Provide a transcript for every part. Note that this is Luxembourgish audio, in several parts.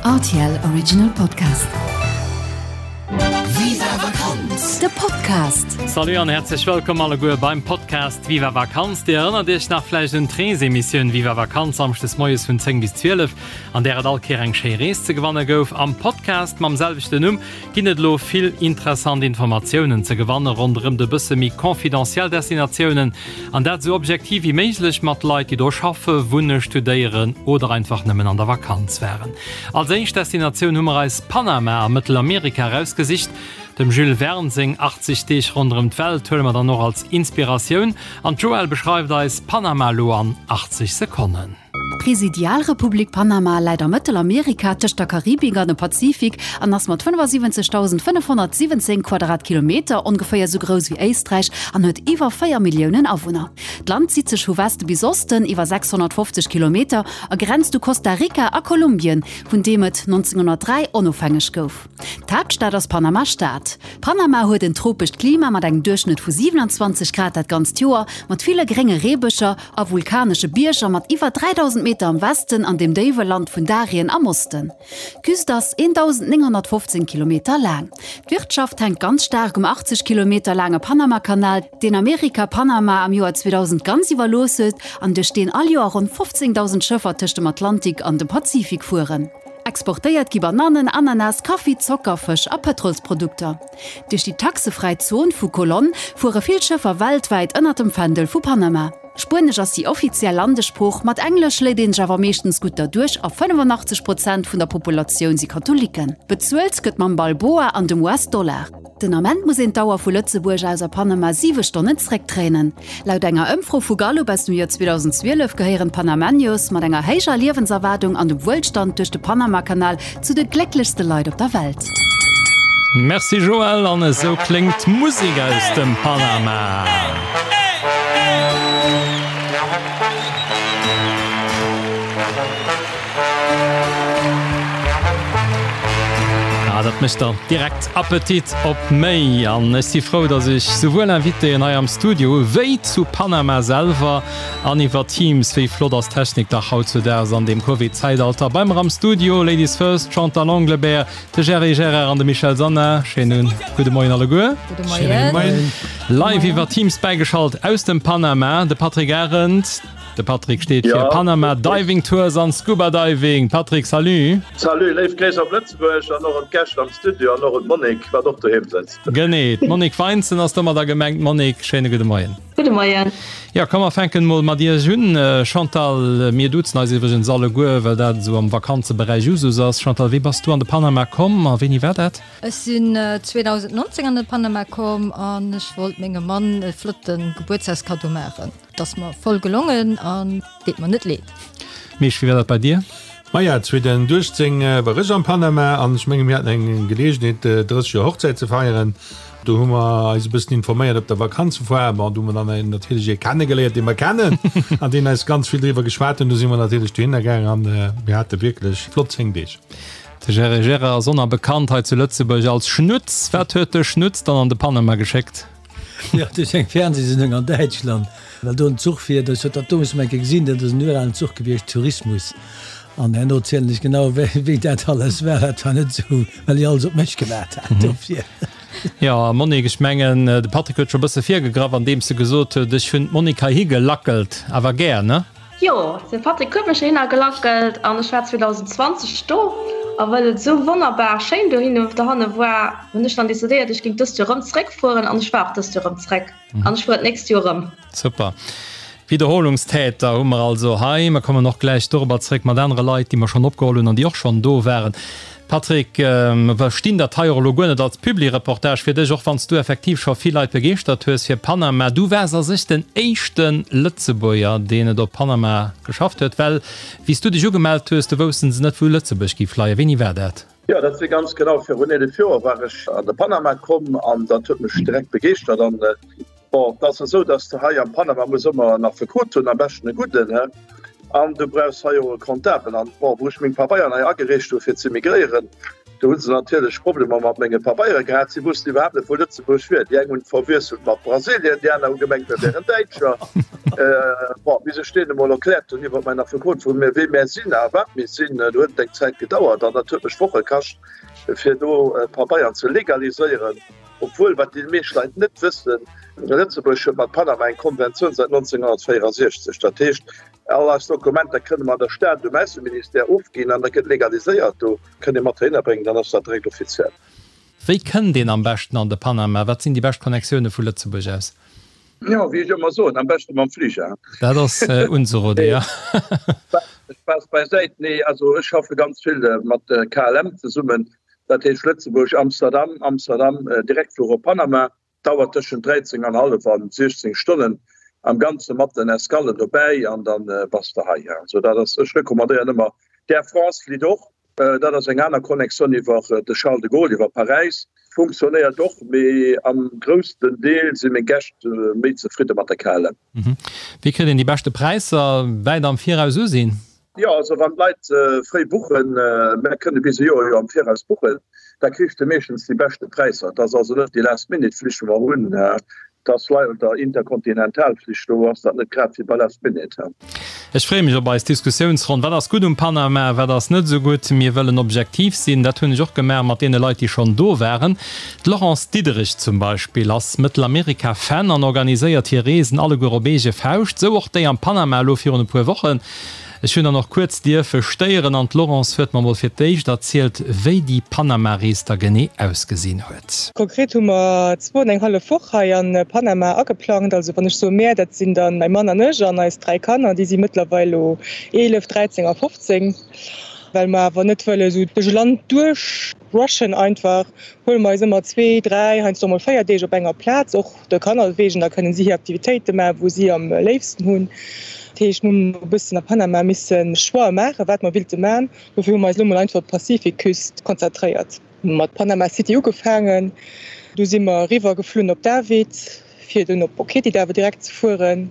Rtl Original Podcast. Viva Vakanz! De Podcast. Salut an häerzlech wëllkomm alleguer beim Podcast Viva Vakanz. Dir erënnert Iech nach vläicht un d'Reesemissioun Viva Vakanz samschdes moies vun 10 bis 12, an där et all Kéier eng schéi Rees ze gewanne gouf. Am Podcast mam selwechten Numm ginn et elo vill interessant Informatiounen ze gewanne ronderëm de bësse méi confidentiel Destinatiounen, an dat esou objektiv wéi méiglech mat Leit, déi do schaffe, wunne, studéieren oder einfach nëmmen an der Vakanz waren. Als éischt Destinatioun hu mer eis Panama a Mëttelamerika erausgesicht. Dem Jules Verne seng 80 Deeg ronderëm d'Welt huele mer dann och als Inspiratioun an d'Joëlle beschreift eis Panama elo an 80 Sekonnen. D'Presidialrepublik Panama läit a Mëttelamerika tëscht der Karibik an dem Pazifik an ass mat 75.517 Quadratkilometer ongeféier sou grouss wéi Éisträich an huet iwwer 4 Milliounen Awunner. D'Land zitt sech vu Weste bis Osten iwwer 650 Kilometer a grenzt u Costa Rica a Kolumbien, vun deem et 1903 onofhängeg gouf. D'Haaptstad ass Panama-Stad. Panama huet en tropescht Klima mat engem Duerchschnëtt vu 27 Grad dat ganzt Joer, mat ville grénge Reebëscher a vulkanesche Bierger mat iwwer 3.000 Meter am Westen an dem déiwe Land vun Darien am Osten. D'Küst ass 1.915 Kilometer laang. D'Wirtschaft hänkt ganz staark um 80 Kilometer laange Panamakanal, deen Amerika Panama am Joer 2000 ganz iwwerlooss huet an duerch deen all Joer ronn 15.000 Schëffer tëscht dem Atlantik an dem Pazifik fueren. Exportéiert gi Banannen, Ananas, Kaffi, Zocker, Fësch a Pëtrolsprodukter. Duerch déi taxefräi Zon vu Colón fuere vill Schëffer weltwäit ënner dem Fändel vu Panama. Spuenesch ass déi offiziell Landessprooch, mat Englesch léit een sech awer meeschtens gutt derduerch a 85 Prozent vun der Populatioun si Katholiken. Bezuelt gëtt mam Balboa an dem US-Dollar. Den Ament muss een d'Auer vu Lëtzebuerg aus a Panama 7 Stonnen zréckdréinen. Laut enger Ëmfro vu Gallup aus dem Joer 2012 gehéieren d'Panamenyos mat enger héijer Liewenserwaardung an dem Wuelstand duerch de Panamakanal zu de glécklechste Leit op der Welt. Merci Joël, an esou kléngt d'Musek aus dem Panama. Ah, dat mécht der direkt Appetit op méi. An ech si frou, datt ech souwuel Invitéen hei am Studio hu wéi zu Panama selwer an iwwer Teams. Wéi flott ass d'Technik dach hautzudaags an deem Covid-Zäitalter. Bei mer am Studio, Ladies first, d'Chantal Englebert, de Gerry Gerard an de Michel Sanna. Schéinen gudde Moien alleguer. Gudde Moien. Live iwwer Teams bäigeschalt aus dem Panama, de Patrick Arendt. De Patrick steet fir Panama Diving Tours an Scuba Diving. Patrick, salut! Salut, léif Gréiss op Lëtzebuerg an och un d'Gäscht am Studio an och un d'Monique, wat och doheem sëtzt. Genee, d'Monique Weinzen ass domadder gemengt. Monique, schéine gudde Moien. Gudde Moien. Jo, komm mer fänken mol mat iech un. Chantal, mir duzen eis iwwregens alleguer, well dat esou am Vakanzeberäich Usus ass. Chantal, wéi bass du an de Panama komm a wéini war dat? Ech sinn 2019 an de Panama komm an ech wollt mengem Mann e flotte Gebuertsdagskaddo maachen. 't ass mer voll gelongen an deet mer net leed. Misch, wéi war dat bei dir? Maja, 2018 war ech am Panama an ech menge mir haten eng Geleegenheet 30 Joer Hochzäit ze feieren. Do hu mer eis e bëssen informéiert op der Vakanzefoire. Bon, do hu mer dann natierlech ee kennegeléiert, dee mer kennen an deen eis ganz vill driwwer geschwat hunn. Do si mer natierlech dohinner gaang an mir hate wierklech flott 10 Deeg. De Gerry Gerard ass onerbekannt hei zu Lëtzebuerg als Schnutz. Wat huet de Schnutz dann an de Panama geschéckt? Jo, duerch eng Fernsehsendung an Däitschland, well do en Zuch fiert. Ech hat dat domus mol eng Kéier gesinn, dat ass en uralen Zuch gewiescht, Tourismus. An herno zielen ech genau, wéi, wéi dat alles war. Dat war net esou, well ech alles op mech gewaart hat dofir. Jo, a Monique, ech mengen, de Patrick huet scho e bësse virgegraff, andeems e gesot huet, ech hunn d'Monique heihi gelackelt. Awer gär, ne? Jo, de Patrick huet mech heihinner gelackelt an ech war 2020 do. A well et esou wonnerbar schéin dohinne dohanne war, hunn ech dann decidéiert, ech géing dëst Joer erëm zeréckfueren an ech war och dëst Joer erëm zeréck an ech fueren d'nächst Joer erëm. Super. Wiederholungstäter hu mer also hei. Mer kommen och gläich dorobber zeréck mat anere Leit, déi mer schonn opgeholl hunn an déi och schonn do waren. Patrick, mer verstinn dat hei och elo guer net als Publireportage fir dech, och wann s du effektiv scho vill Leit begeeschtert hues fir Panama. Du waars a sech den éischte Lëtzebuerger, deen et op Panama geschafft huet, well wéi s du dech ugemellt hues, do woussten se net, wou Lëtzebuerg géif leien. Wéini war dat? Jo, dat si ganz genau virun 11 Joer war ech an de Panama komm an dat huet mech direkt begeeschtert. An bon, et ass esou, dass de hei am Panama muss ëmmer en Affekot hunn, am beschten e gudden, he, an du brauchs hei och e Comptabel. An bon, wou ech meng Pabeieren hei agereecht hu fir ze migréieren, Do hu se natierlech Problemer mat menge Pabeiere gehat. Si wussten iwwerhaapt net, wou Lëtzebuerg wier. Déi eng hunn et verwiesselt mat Brasilien, déi aner hu gemengt, mir wären Däitscher. Bon, bis ech deenen emol erkläert hunn iwwer mäin Affekot, wou mir, wee mär sinn a wat mir sinn, do huet et eng Zäit gedauert an dat huet mech Woche kascht, fir do Pabeieren ze legaliséieren. Obwuel, wat déi meescht Leit net wëssen, Lëtzebuerg huet mat Panama eng Konventioun säit 1964. Dat heescht, All eis Dokumenter kënne mer an der Stad um Ausseministère ofginn an da gëtt legaliséiert. Do kënnt ee mat heihinner bréngen, dann ass dat direkt offiziell. Wéi kënnt een am beschten an de Panama? Wat sinn déi bescht Connectioune vu Lëtzebuerg aus? Jo, wéi ech ëmmer soen, am beschte mam Fliger. Dat ass unzerode, jo. Spaass beisäit, nee, also ech schaffe ganz vill mat KLM zesummen, dat heescht Lëtzebuerg, Amsterdam, Amsterdam direkt fluch op Panama. Dauert tëschent 13 an hallef an 16 Stonnen am Ganze mat den Escallen dobäi an dann bass de hei. Also dat ass, ech recommandéieren ëmmer d'Air France flitt och, dat ass eng aner Connexion iwwer de Charles de Gaulle, iwwer Paräis, funktionéiert och, mee am groussten Deel si meng Gäscht méi zefridde mat der KLM. Wéi kritt een déi beschte Präisser? Wäit am Viraus usinn? Jo, also wann d'Leit fréi buchen, mär kënne bis e Joer jo am Viraus buchen, da kriss de meeschtens déi beschte Präisser. Et ass also net déi Last-Minute-Flich wou mer hunn, et ass leider Interkontinentalflich, do ass dat net grad wéi bei Last Minute. Ech freeë mech op eis Diskussiounsronn. Wat ass gutt um Panama, wat ass net esou gutt? Mir wëllen objektiv sinn. Dat hunn ech och gemaach mat deene Leit, déi schonn do waren. D'Laurence Diederich zum Beispill ass Mëttelamerika-Fan an organiséiert hir Reesen alleguer op eege Fauscht. Esou och déi am Panama elo virun e puer Wochen. Ech hunn dann och kuerz dierfe stéieren an d'Laurence huet mer mol fir d'éischt erzielt, wéi déi Panama-Rees da genee ausgesinn huet. Konkret hu mer zwou an eng hallef Woch hei a Panama ageplangt. Also wann ech soe mär, dat sinn dann mäi Mann an ech an eis 3 Kanner, déi si mëttlerweil elo 11, 13 a 15. Well mer awer net wëlle sou duerch e Land duerch rushen einfach, huele mer eis ëmmer zwee, dräi, heiansdo och mol véier Deeg op enger Plaz, och de Kanner wegen, da kënnen si hir Aktivitéite maachen, wou si am léifsten hunn. Dat heescht, mir hunn e bëssen a Panama misse Choixë maachen, wat mer willte maachen. Dofir hu mer eis elo mol einfach op d'Pazifikküst konzentréiert. Mat Panama City ugefaangen, du si mer eriwwer geflunn op David, fir dunn op Boquete awer direkt ze fueren.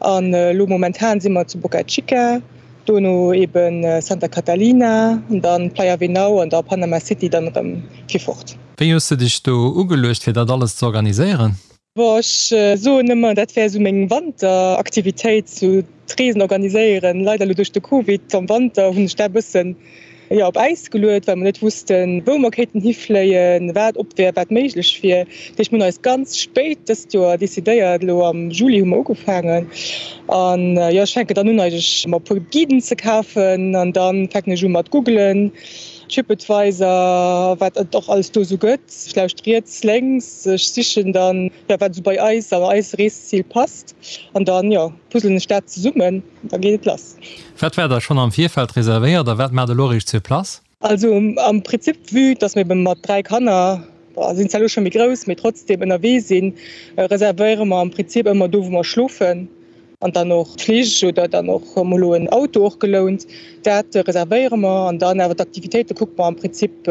An elo momentan si mer zu Boca Chica, dono eben Santa Catalina, dann Playa Venao an da Panama City dann erëm fir fort. Wéi hues de dech do ugeluecht fir dat alles ze organiséieren? Bon, ech soen ëmmer, dat wär esou meng Wanteraktivitéit, sou d'Reesen organiséieren. Leider elo duerch de Covid am Wanter hunn ech dat e bëssen, jo, op Äis geluet, well mer net wussten, wou mer kéinten hifléien, wat op wär, wat méiglech wier. Dat heescht, mir hunn eis ganz spéit dëst Joer decidéiert, elo am Juli hu mer ugefaangen. An, jo, ech fänken dann un eigentlech mer e puer Guiden ze kafen an da fänken ech u mat googelen. Tripadvisor, wat et och alles do esou gëtt. Ech lauscht riets, lénks, ech sichen dann, jo, wat esou bei eis an eis Reeszil passt an dann, jo, puzzelen ech dat zesummen an da geet et lass. Wat war da schonn am Virfeld reservéiert a wat maacht elo eréischt sur place? Also am Prinzip, vue dass mir ebe mat 3 Kanner, bon, sinn zwar elo scho méi grouss, mee trotzdem ënnerwee sinn, reservéiere mer am Prinzip ëmmer do, wou mer schlofen. An dann och d'Flich oder dann och mol elo en Auto och gelount. Dat reservéiere mer an dann awer d'Aktivitéite kucke mer am Prinzip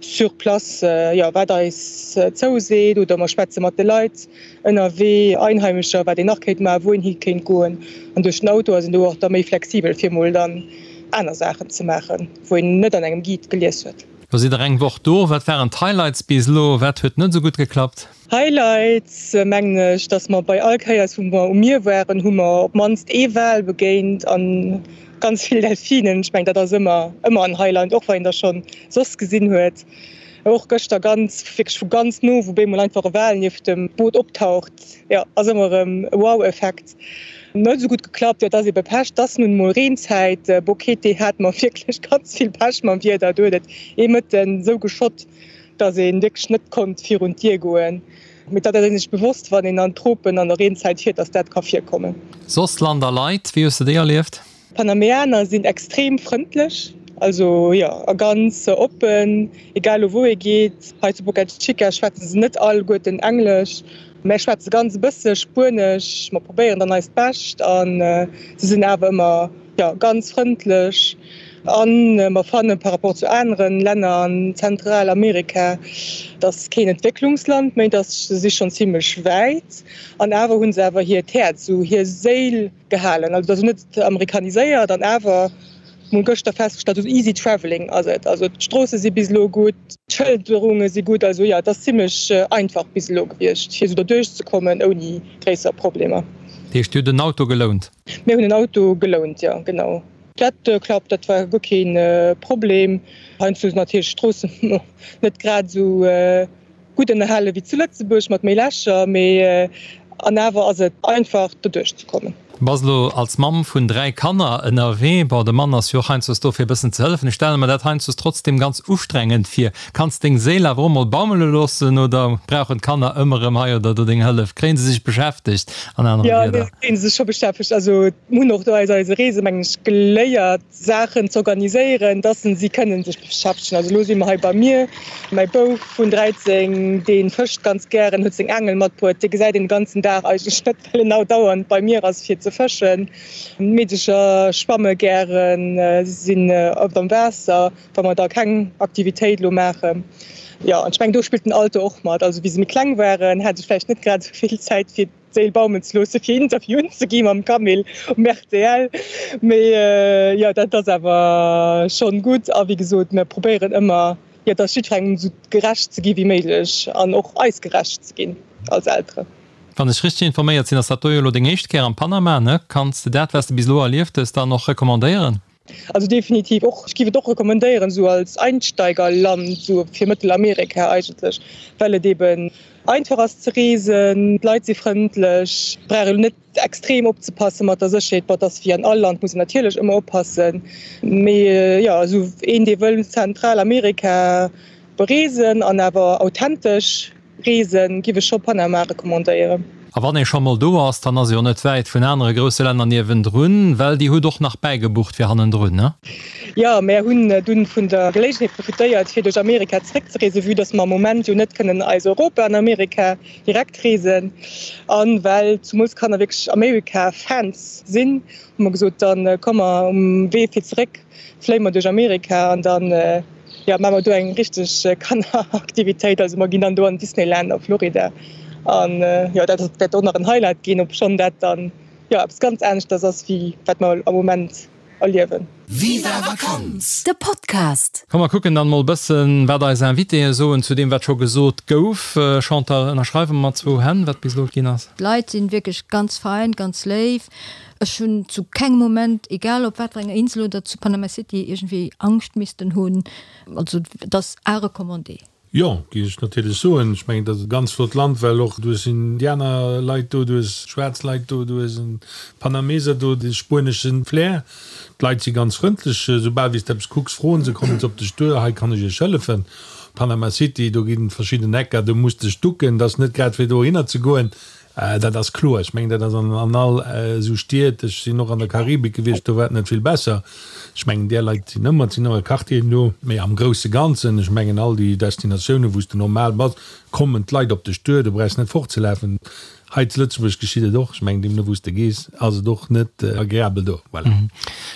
sur place, jo, wat eis zouseet oder mer schwätze mat de Leit ënnerwee, Einheimescher, wat een nach kéint maachen, wou een hi kéint goen. An duerch den Auto ass een do och da méi flexibel fir mol dann aner Saachen ze maachen, wou een net an engem Guide gelies huet. Lo sidd der eng Woch do. Wat waren d'Highlights bis elo? Wat huet net esou gutt geklappt? Highlights mengen ech, dass mer bei all Kéiers wou mer um Mier waren, hu mer op mannst ee Wal begéint an ganz vill Delfinen. Ech mengen dat ass ëmmer ëmmer en Highlight, och wann een der schonn soss gesinn huet. Och gëschter ganz wierklech vu ganz no, wou bemol einfach e Wal nieft dem Boot optaucht, jo ass ëmmer erëm e Wow-Effekt. Net esou gutt geklappt, jo et ass ebe Pech, et ass nun emol Reenzäit. Boquete hate mer wierklech ganz vill Pech mam Wieder, do huet et ee Mëtten esou geschott, dass ee wierklech net konnt virun d'Dier goen. Mee dat ass ee sech bewosst, wann een an d'Tropen an der Reenzäit fiert, dass dat ka virkommen. Soss Land a Leit, wéi hues de déi erlieft? D'Panameaner sinn extrem frëndlech, also jo, a ganz oppen, egal u wou ee geet. Hei zu Boca Chica schwätze se net alleguerten Englesch, mä schwätze ganz e bësse Spuenesch. Mer probéieren dann eist Bescht a se sinn awer ëmmer Jo, ganz frëndlech. An mer fannen par rapport zu aneren Länner an Zentralamerika, dass keen Entwécklungsland méi, dass se si schonn zimlech wäit. An awer hu se awer hiert Häerz, esou hir Séil gehalen. Also dat ass net amerikaniséiert an awer, mol gëschter festgestallt, esou easy travelling ass et. Also d'Stroosse si bis elo gutt, d'Schëlderunge si gutt, also jo, et ass zimmlech einfach bis elo gewiescht, fir esou derduerch ze kommen ouni gréisser Problemer. Dat heescht, Dir hutt en Auto gelount? Mir hunn en Auto gelount, jo, genau. Dat klappt, dat war guer kee Problem. Heiansdo sinn natierlech d'Stroossen net grad esou gutt ënnerhale wéi zu Lëtzebuerg mat méi Lächer, mee an awer ass et einfach doduerch ze kommen. Bass elo als Mamm vun 3 Kanner ënnerwee. Bon, de Mann ass jo och heiansdo do fir e bëssen ze hëllefen. Ech stelle mer dat heiansdo trotzdem ganz ustrengend vir. Kanns deng Séil awer och mol baumele loossen oder brauchen d'Kanner ëmmer erëm hei oder do deng Hëllef? Kréien se sech beschäftegt an anere Wierder? Jo, mir kréien se scho beschäftegt. Also mir hunn och do aus eise Reese mengen ech geléiert, Saachen z'organiséieren, dass si kënnen sech beschäftegen. Also elo si mer hei bei mir. Mäi Bouf vun 13, dee fëscht ganz gären, huet seng Aangel matbruet. Dee gesäit een de ganzen Dag eigentlech net, well en andauernd bei mir ass fir ze fëschen. D'Meedecher schwamme gären, sinn oft am Waasser, wa mer da keng Aktivitéit elo maachen. Jo, an ech mengen, do spillt den Alter och mat. Also wéi se méi kleng waren, hat ech vläicht net grad esou vill Zäit fir. d'Séil baumen ze loosse fir Interviewen ze gi mam Camille um rtl. Mee jo, dat ass awer schonn gutt. A wéi gesot, mir probéieren ëmmer, jo, dass jiddwerengem esou gerecht ze gi wéi méiglech an och eis gerecht ze ginn als Elteren. Wann ech richteg informéiert sinn, ass dat do jo elo deng éischt Kéier am Panama, ne? Kanns de dat, wat s de bis elo erlieft hues, dann och recommandéieren? Also definitiv och, ech géif et och recommandéieren esou als Einsteigerland esou fir Mëttelamerika eigentlech, well et eben einfach ass ze reesen, d'Leit si frëndlech, brauch elo net extrem opzepasse mat der Sécherheet, bon et ass wéi an all Land, muss een natierlech ëmmer oppassen, mee jo esou een dee wëll Zentralamerika bereesen an awer authentesch Reesen, giff ech scho Panama recommandéieren. A wann ee scho mol do ass, dann ass ee jo net wäit vun anere grousse Länner niewendrun, well Dir hutt och nach bäigebucht fir hannendrun, ne? Jo, mär hunn dunn vun der Geléigenheet profitéiert fir duerch Amerika zeréckzereesen, vue dass mer am Moment jo net kënnen eis Europa an Amerika direkt reesen. An well zumools d'Kanner wierklech Amerika-Fans sinn, hu mer gesot, dann komm mer um Wee fir zeréck fléie mer duerch Amerika an dann jo maache mer do eng richteg Kanneraktivitéit. Also mer ginn dann do an Disneyland a Florida an jo dat wäert och nach en Highlight ginn, obschonn dat dann jo eppes ganz aneschters ass wéi wat mer am Moment erliewen. Viva Vakanz, de Podcast! Komm mer kucken dann mol bëssen wat eis Invitéen soen zu deem wat scho gesot gouf. Chantal, ënnerschreiwe mer mat zwou Hänn wat bis elo ginn ass? D'Leit sinn wierklech ganz fein, ganz léif. Ech hunn zu kengem Moment, egal op wat fir enger Insel oder zu Panama City, iergendwéi Angscht missten hunn. Also et ass à recommander. Jo, géif ech natierlech soen. Ech mengen, dat ass e ganz flott Land, well och du hues Indianerleit do, du hues schwaarz Leit do, du hues e Panameser do, de spuenesche Flair. D'Leit si ganz frëndlech. Soubal wéi s de eppes kucks, froen se, kommen se op dech duer, hei kann ech iech hëllefen. Panama City, do ginn verschidden Ecker, do muss dech ducken, dat ass net grad fir dohinner ze goen. Dat ass kloer. Ech mengen, dat ass an all esou Stied. Ech sinn och an der Karibik gewiescht, do war et net vill besser. Ech mengen, där Leit sinn ëmmer, et sinn ëmmer Quartieren do. Mee am grousse Ganzen, ech mengen, all déi Destinatiounen, wou s de normal bass, kommen d'Leit op dech duer. Du brauchs net fortzelafen. Hei zu Lëtzebuerg geschitt et och. Ech mengen, deemno wou s de gees, ass et och net agreabel do. Voilà.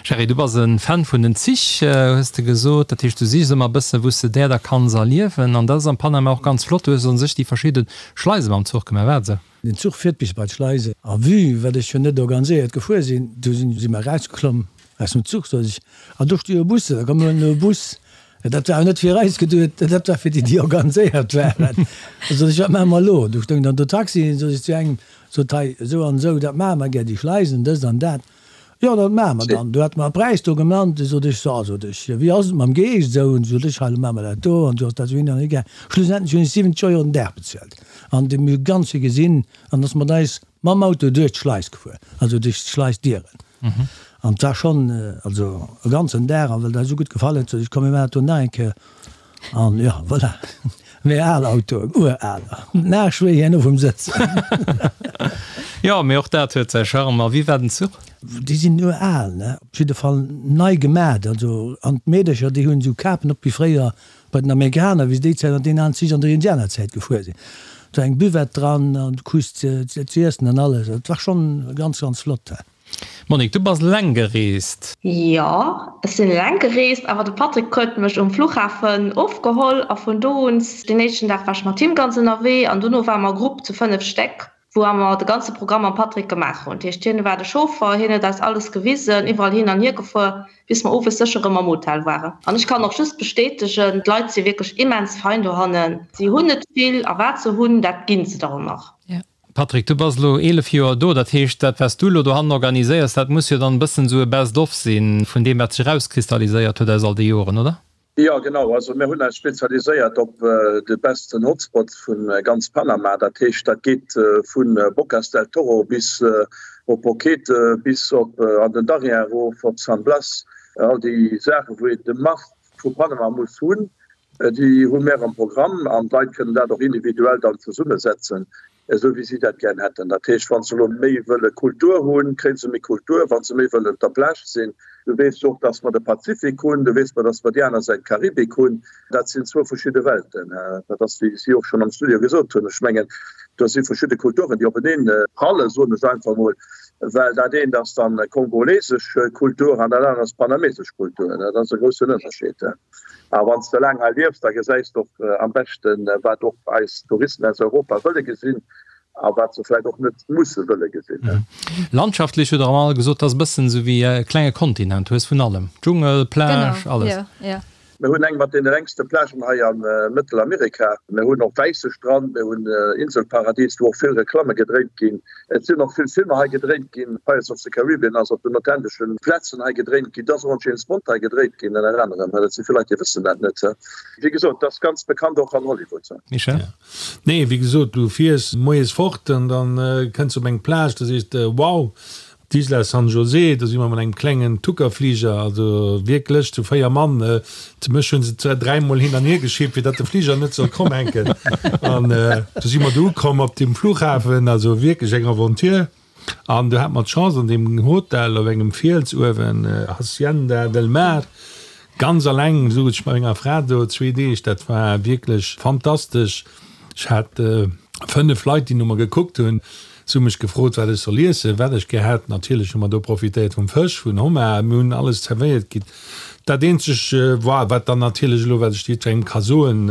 Gerry, du bass e Fan vun den Zich, hues de gesot. Dat heescht, du sichs ëmmer e bësse wou s de där da kanns erliewen. An dat ass am Panama och ganz flott. Du hues u sech déi verschidde Schleise mam Zuch gemaach, wat esou? Den Zuch fiert bis bei d'Schleise a vue wat ech jo net organiséiert gefuer sinn, du sinn si mer erausgeklomm aus dem Zuch, sot ech, an do sti jo Bussen, da komm mir huelen elo e Bus. Dat war awer net fir eis geduet, dat war fir déi, déi organiséiert waren. Da sot ech, wat maache mer elo? Du stoung dann do Taxien, sot ech zu engem, sot hei esou an esou, dat maache mer gär, déi Schleisen, dëst an dat. Jo, dat maache mer dann. Du hat mer e Präis do genannt. Du sot ech, so, sot ech, wéi ass et mam Geescht esou? An du sot ech, hei, lo maache mer dat do an du ass dat esou hin an hier gaang. Schlussendlech hunn ech 70 Euro den Dag bezuelt an de mir ganz vill gesinn an ass mat eis mam Auto duerch d'Schleis gefuer, also duerch d'Schleisdieren. An et war schonn, also e ganzen Dag. A well dat esou gutt gefall huet, sot ech, komm mir maachen dat do nach eng Kéier. An jo, voilà, méi al Autoen, uraler, nach schwéi herno vum Sëtzen. Jo, mee och dat huet säi Charme. A wéi war den Zuch? Déi sinn ural, ne? Op jidde Fall nei gemat. Also, an d'Meedercher, déi hunn esou Kapen op wéi fréier bei den Amerikaner, wéi se déi Zäit an deenen alen Zich an der Indianerzäit gefuer sinn. Do eng Buvette dran an du krus ze iessen an alles. Et war schonn ganz, ganz flott. Monique, du bass eleng gereest? Jo, ech sinn eleng gereest, awer de Patrick huet mech um Fluchhafen ofgeholl a vun do un, den éischten Dag war ech mat him ganz ënnerwee an dono ware mer Grupp zu 5 Stéck. wou mer de ganze Programm mam Patrick gemaach hunn. Dat heescht, hien war de Chauffer, hien huet eis alles gewisen, iwwerall hin an hier gefuer, bis mer owes sécher erëm am Hotel waren. An ech kann och just bestätegen, d'Leit si wierklech immens fein dohannen. Si hunn net vill a wat se hunn, dat ginn se der och nach. Patrick, du bass elo 11 Joer do, dat heescht, dat wat s du elo dohannen organiséiers, dat muss jo dann e bëssen esou e Best of sinn vun deem, wat sech erauskristalliséiert huet aus all de Joren, oder? Jo, genau. Also mir hunn eis spezialiséiert op de besten Hotspot vu ganz Panama. Dat heescht, dat geet vu Bocas del Toro bis op Boquete, bis op an den Darien erof, op San Blas. All déi Saachen, wou een de Must vu Panama muss hunn, déi hu mir am Programm an d'Leit kënnen dat och individuell dann zesummesetzen. Esou wéi si dat gären hätten. Dat heescht, wa se elo méi wëlle Kultur hunn, kréie se méi Kultur. Wa se méi wëllen op der Plage sinn, du weess och, datt mer de Pazifik hunn, du weess mer, datt mer déi aner Säit d'Karibik hunn. Dat sinn zwou verschidde Welten. Dat ass, wéi si och schonn am Studio gesot hunn, ech mengen, do si verschidde Kulturen, déi openeen prallen, soen ech einfach emol, well dat eent ass dann kongolesesch Kultur an dat anert ass panamesesch Kultur. Dat ass e groussen Ënnerscheed. A wann s de laang hei liefs, da gesäis de och am beschten, wat och eis Touristen aus Europa wëlle gesinn a wat se vläicht och net musse wëlle gesinn. Landschaftlech hutt Der all gesot, dat ass e bëssen esou wéi e klenge Kontinent. Du hues vun allem, Dschungel, Plage, alles. Mir hunn eng mat deene längste Plagen hei a Mëttelamerika. Mir hunn och wäisse Strand, mir hunn Inselparadies, wou och vill Reklamme gedréint ginn. Et sinn och vill Filmer hei gedréint ginn. Pirates of the Caribbean ass op den authentesche Plazen hei gedréint ginn. Et ass och en James Bond hei gedréit ginn, ënner anerem. Dat si vill Leit, déi wëssen dat net. Wéi gesot, et ass ganz bekannt och an Hollywood. Michel? Nee, wéi gesot, du fiers moies fort an da kënns de op eng Plage, da sees de, Wow, D'Isla San José, do si mer mat engem klengen Tuckerfliger, also wierklech zu 4 Mann, zu mech hu se zwar dräimol hin an hier geschippt, fir datt de Fliger net soll kromm hänken. An du si mer do ukomm op dem Flughafen, also wierklech eng Aventure. An du hat mer d'Chance an deem Hotel op engem Fiels uewen, Hacienda del Mar, ganz alleng souz ech mat menger Fra do zwee Deeg, dat war wierklech fantastesch. Ech hat 5 Leit, déi no mer gekuckt hunn. Se hu mech gefrot, wat ech soll iessen, wat ech gär hätt. Natierlech hu mer do profitéiert vum Fësch, vun Homard. Mir hunn alles zerwéiert kritt. Dat eenzeg war, wat dann natierlech elo, wat ech jiddwerengem ka soen,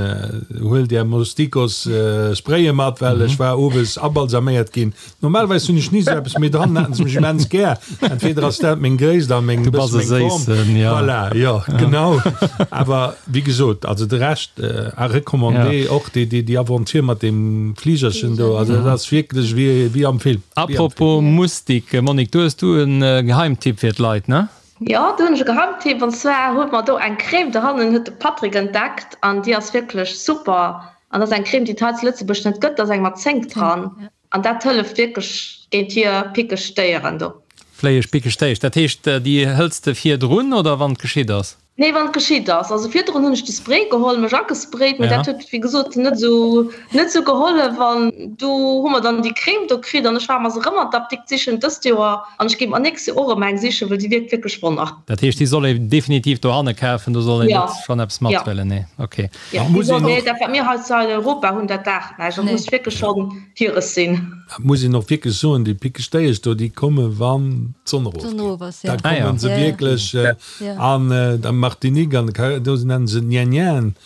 Huelt Är Mostikos-Spraye mat, well ech war owes abalsaméiert ginn. Normalerweis hunn ech ni esou eppes, mee dann haten se mech immens gär. Entweder ass dat meng Gréisst a meng, Du bass e bësse meng Form. Séissen, jo. Voilà, jo, genau. Awer wéi gesot, also de Rescht à recommander, och déi, déi, déi Aventure mat deem Fligerchen do, also dat ass wierklech wéi, wéi am Film. Wéi am Film. Apropos Mustik, Monique, do hues du e Geheimtipp fir d'Leit, ne? Jo, do hunn ech e Geheimtipp, an zwar hu mer do eng Crème dohannen, huet de Patrick entdeckt, an déi ass wierklech super. An dat ass eng Crème, déi et hei zu Lëtzebuerg net gëtt, da ass eng mat Zénk dran. An dat hëlleft wierklech géint hir pickeg Déieren do. Fléieg pickeg Déiesch, dat heescht déi hëls de virdrun oder wann et geschitt ass? Nee, wann et geschitt ass. Also virdrun hunn ech de Spray geholl, mech agesprayt, mee dat huet wéi gesot net esou net esou gehollef. An du hu mer dann déi Crème do kritt an ech war mer se erëm an d'Apdikt sichen dëst Joer an ech géif mer nächst Joer och erëm eng sichen, well déi wierkt wierklech Wonner. Dat heescht déi soll ee definitiv dohanne kafen, do soll een net schonn eppes mathuelen? Nee, ok. Ja, muss een och, dat wat mir hei zu Europa hunn, dat daacht näischt. Dat muss wierklech schonn hires sinn. Dat muss een och wierklech soen, déi pickeg Déiesch do, déi komme wann d'Sonn erofgeet. Da komme se wierklech. An der Martinique an de Karaiben, do nennen se Nien-Nien.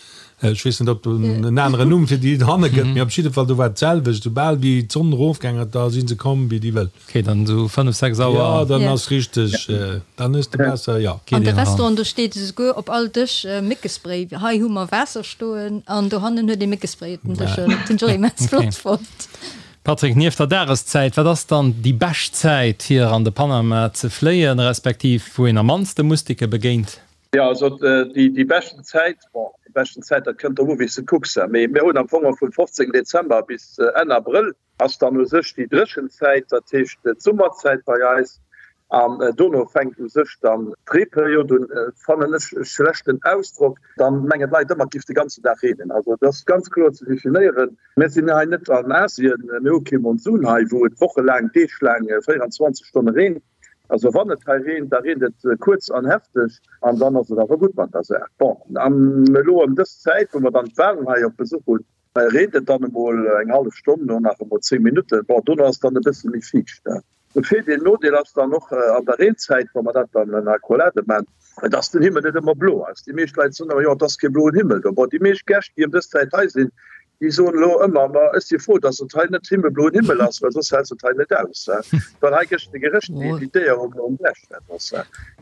Ech weess net, ob et en aneren Numm fir déi dohanne gëtt, mee op jidde Fall, do war et d'selwecht. Soubal wéi d'Sonn erofgaang ass, da si se komm wéi déi Wëll. Ok, dann esou 5, 6 Auer. Jo, dann ass richteg, dann hues de besser, jo. An de Restauranten, do steet esouguer op all Dësch Méckespray. Hei hu mer Waasser stoen an dohannen huet ee Méckespray op den Dëschen. Dat hunn ech och immens flott fonnt. Patrick, nieft der Dageszäit, wat ass dann déi bescht Zäit fir an de Panama ze fléien, respektiv wou een am mannste Mustike begéint? Jo, also déi beschten Zäit, bon, déi beschten Zäit, dat kënnt drop u wéi s de kucks, mee mir hunn am Fong vum 15 Dezember bis Enn Abrëll ass dann u sech déi dréchen Zäit, dat heescht d'Summerzäit bei eis, an dono fänkt u sech dann d'Reeperiod un, fannen ech e schlechten Ausdrock, dann mengen d'Leit ëmmer et géif de ganzen Dag reenen. Also et ass ganz kloer ze definéieren, mir sinn hei net an Asien, mir hu kee Monsun hei, wou et wochelaang, deeglaang, 24 Stonne reent. Also wann et hei reent, da reent et kuerz an hefteg an dann ass et awer gutt mat der Saach. Bon, an elo ëm dës Zäit, wou mer dann d'Walen hei op Besuch hunn, Hei reent et dann emol eng hallef Stonn, no nach emol 10 Minutten. Bon, dono ass et dann e bësse méi fiicht. De Virdeel, Nodeel ass dann och an der Reenzäit, wa mer dat dann en Accolade man, dass den Himmel net ëmmer blo ass. Déi meescht Leit soen ëmmer, jo, et ass kee bloen Himmel do. Bon, déi meescht Gäscht, déi ëm dës Zäit hei sinn, Déi soen elo ëmmer, Ma ech si frou, datt et hei net himmelbloen Himmel ass, well soss häls de et hei net aus. Well hei gëscht de Gerécht wéi d'Déier um Blechbett ass.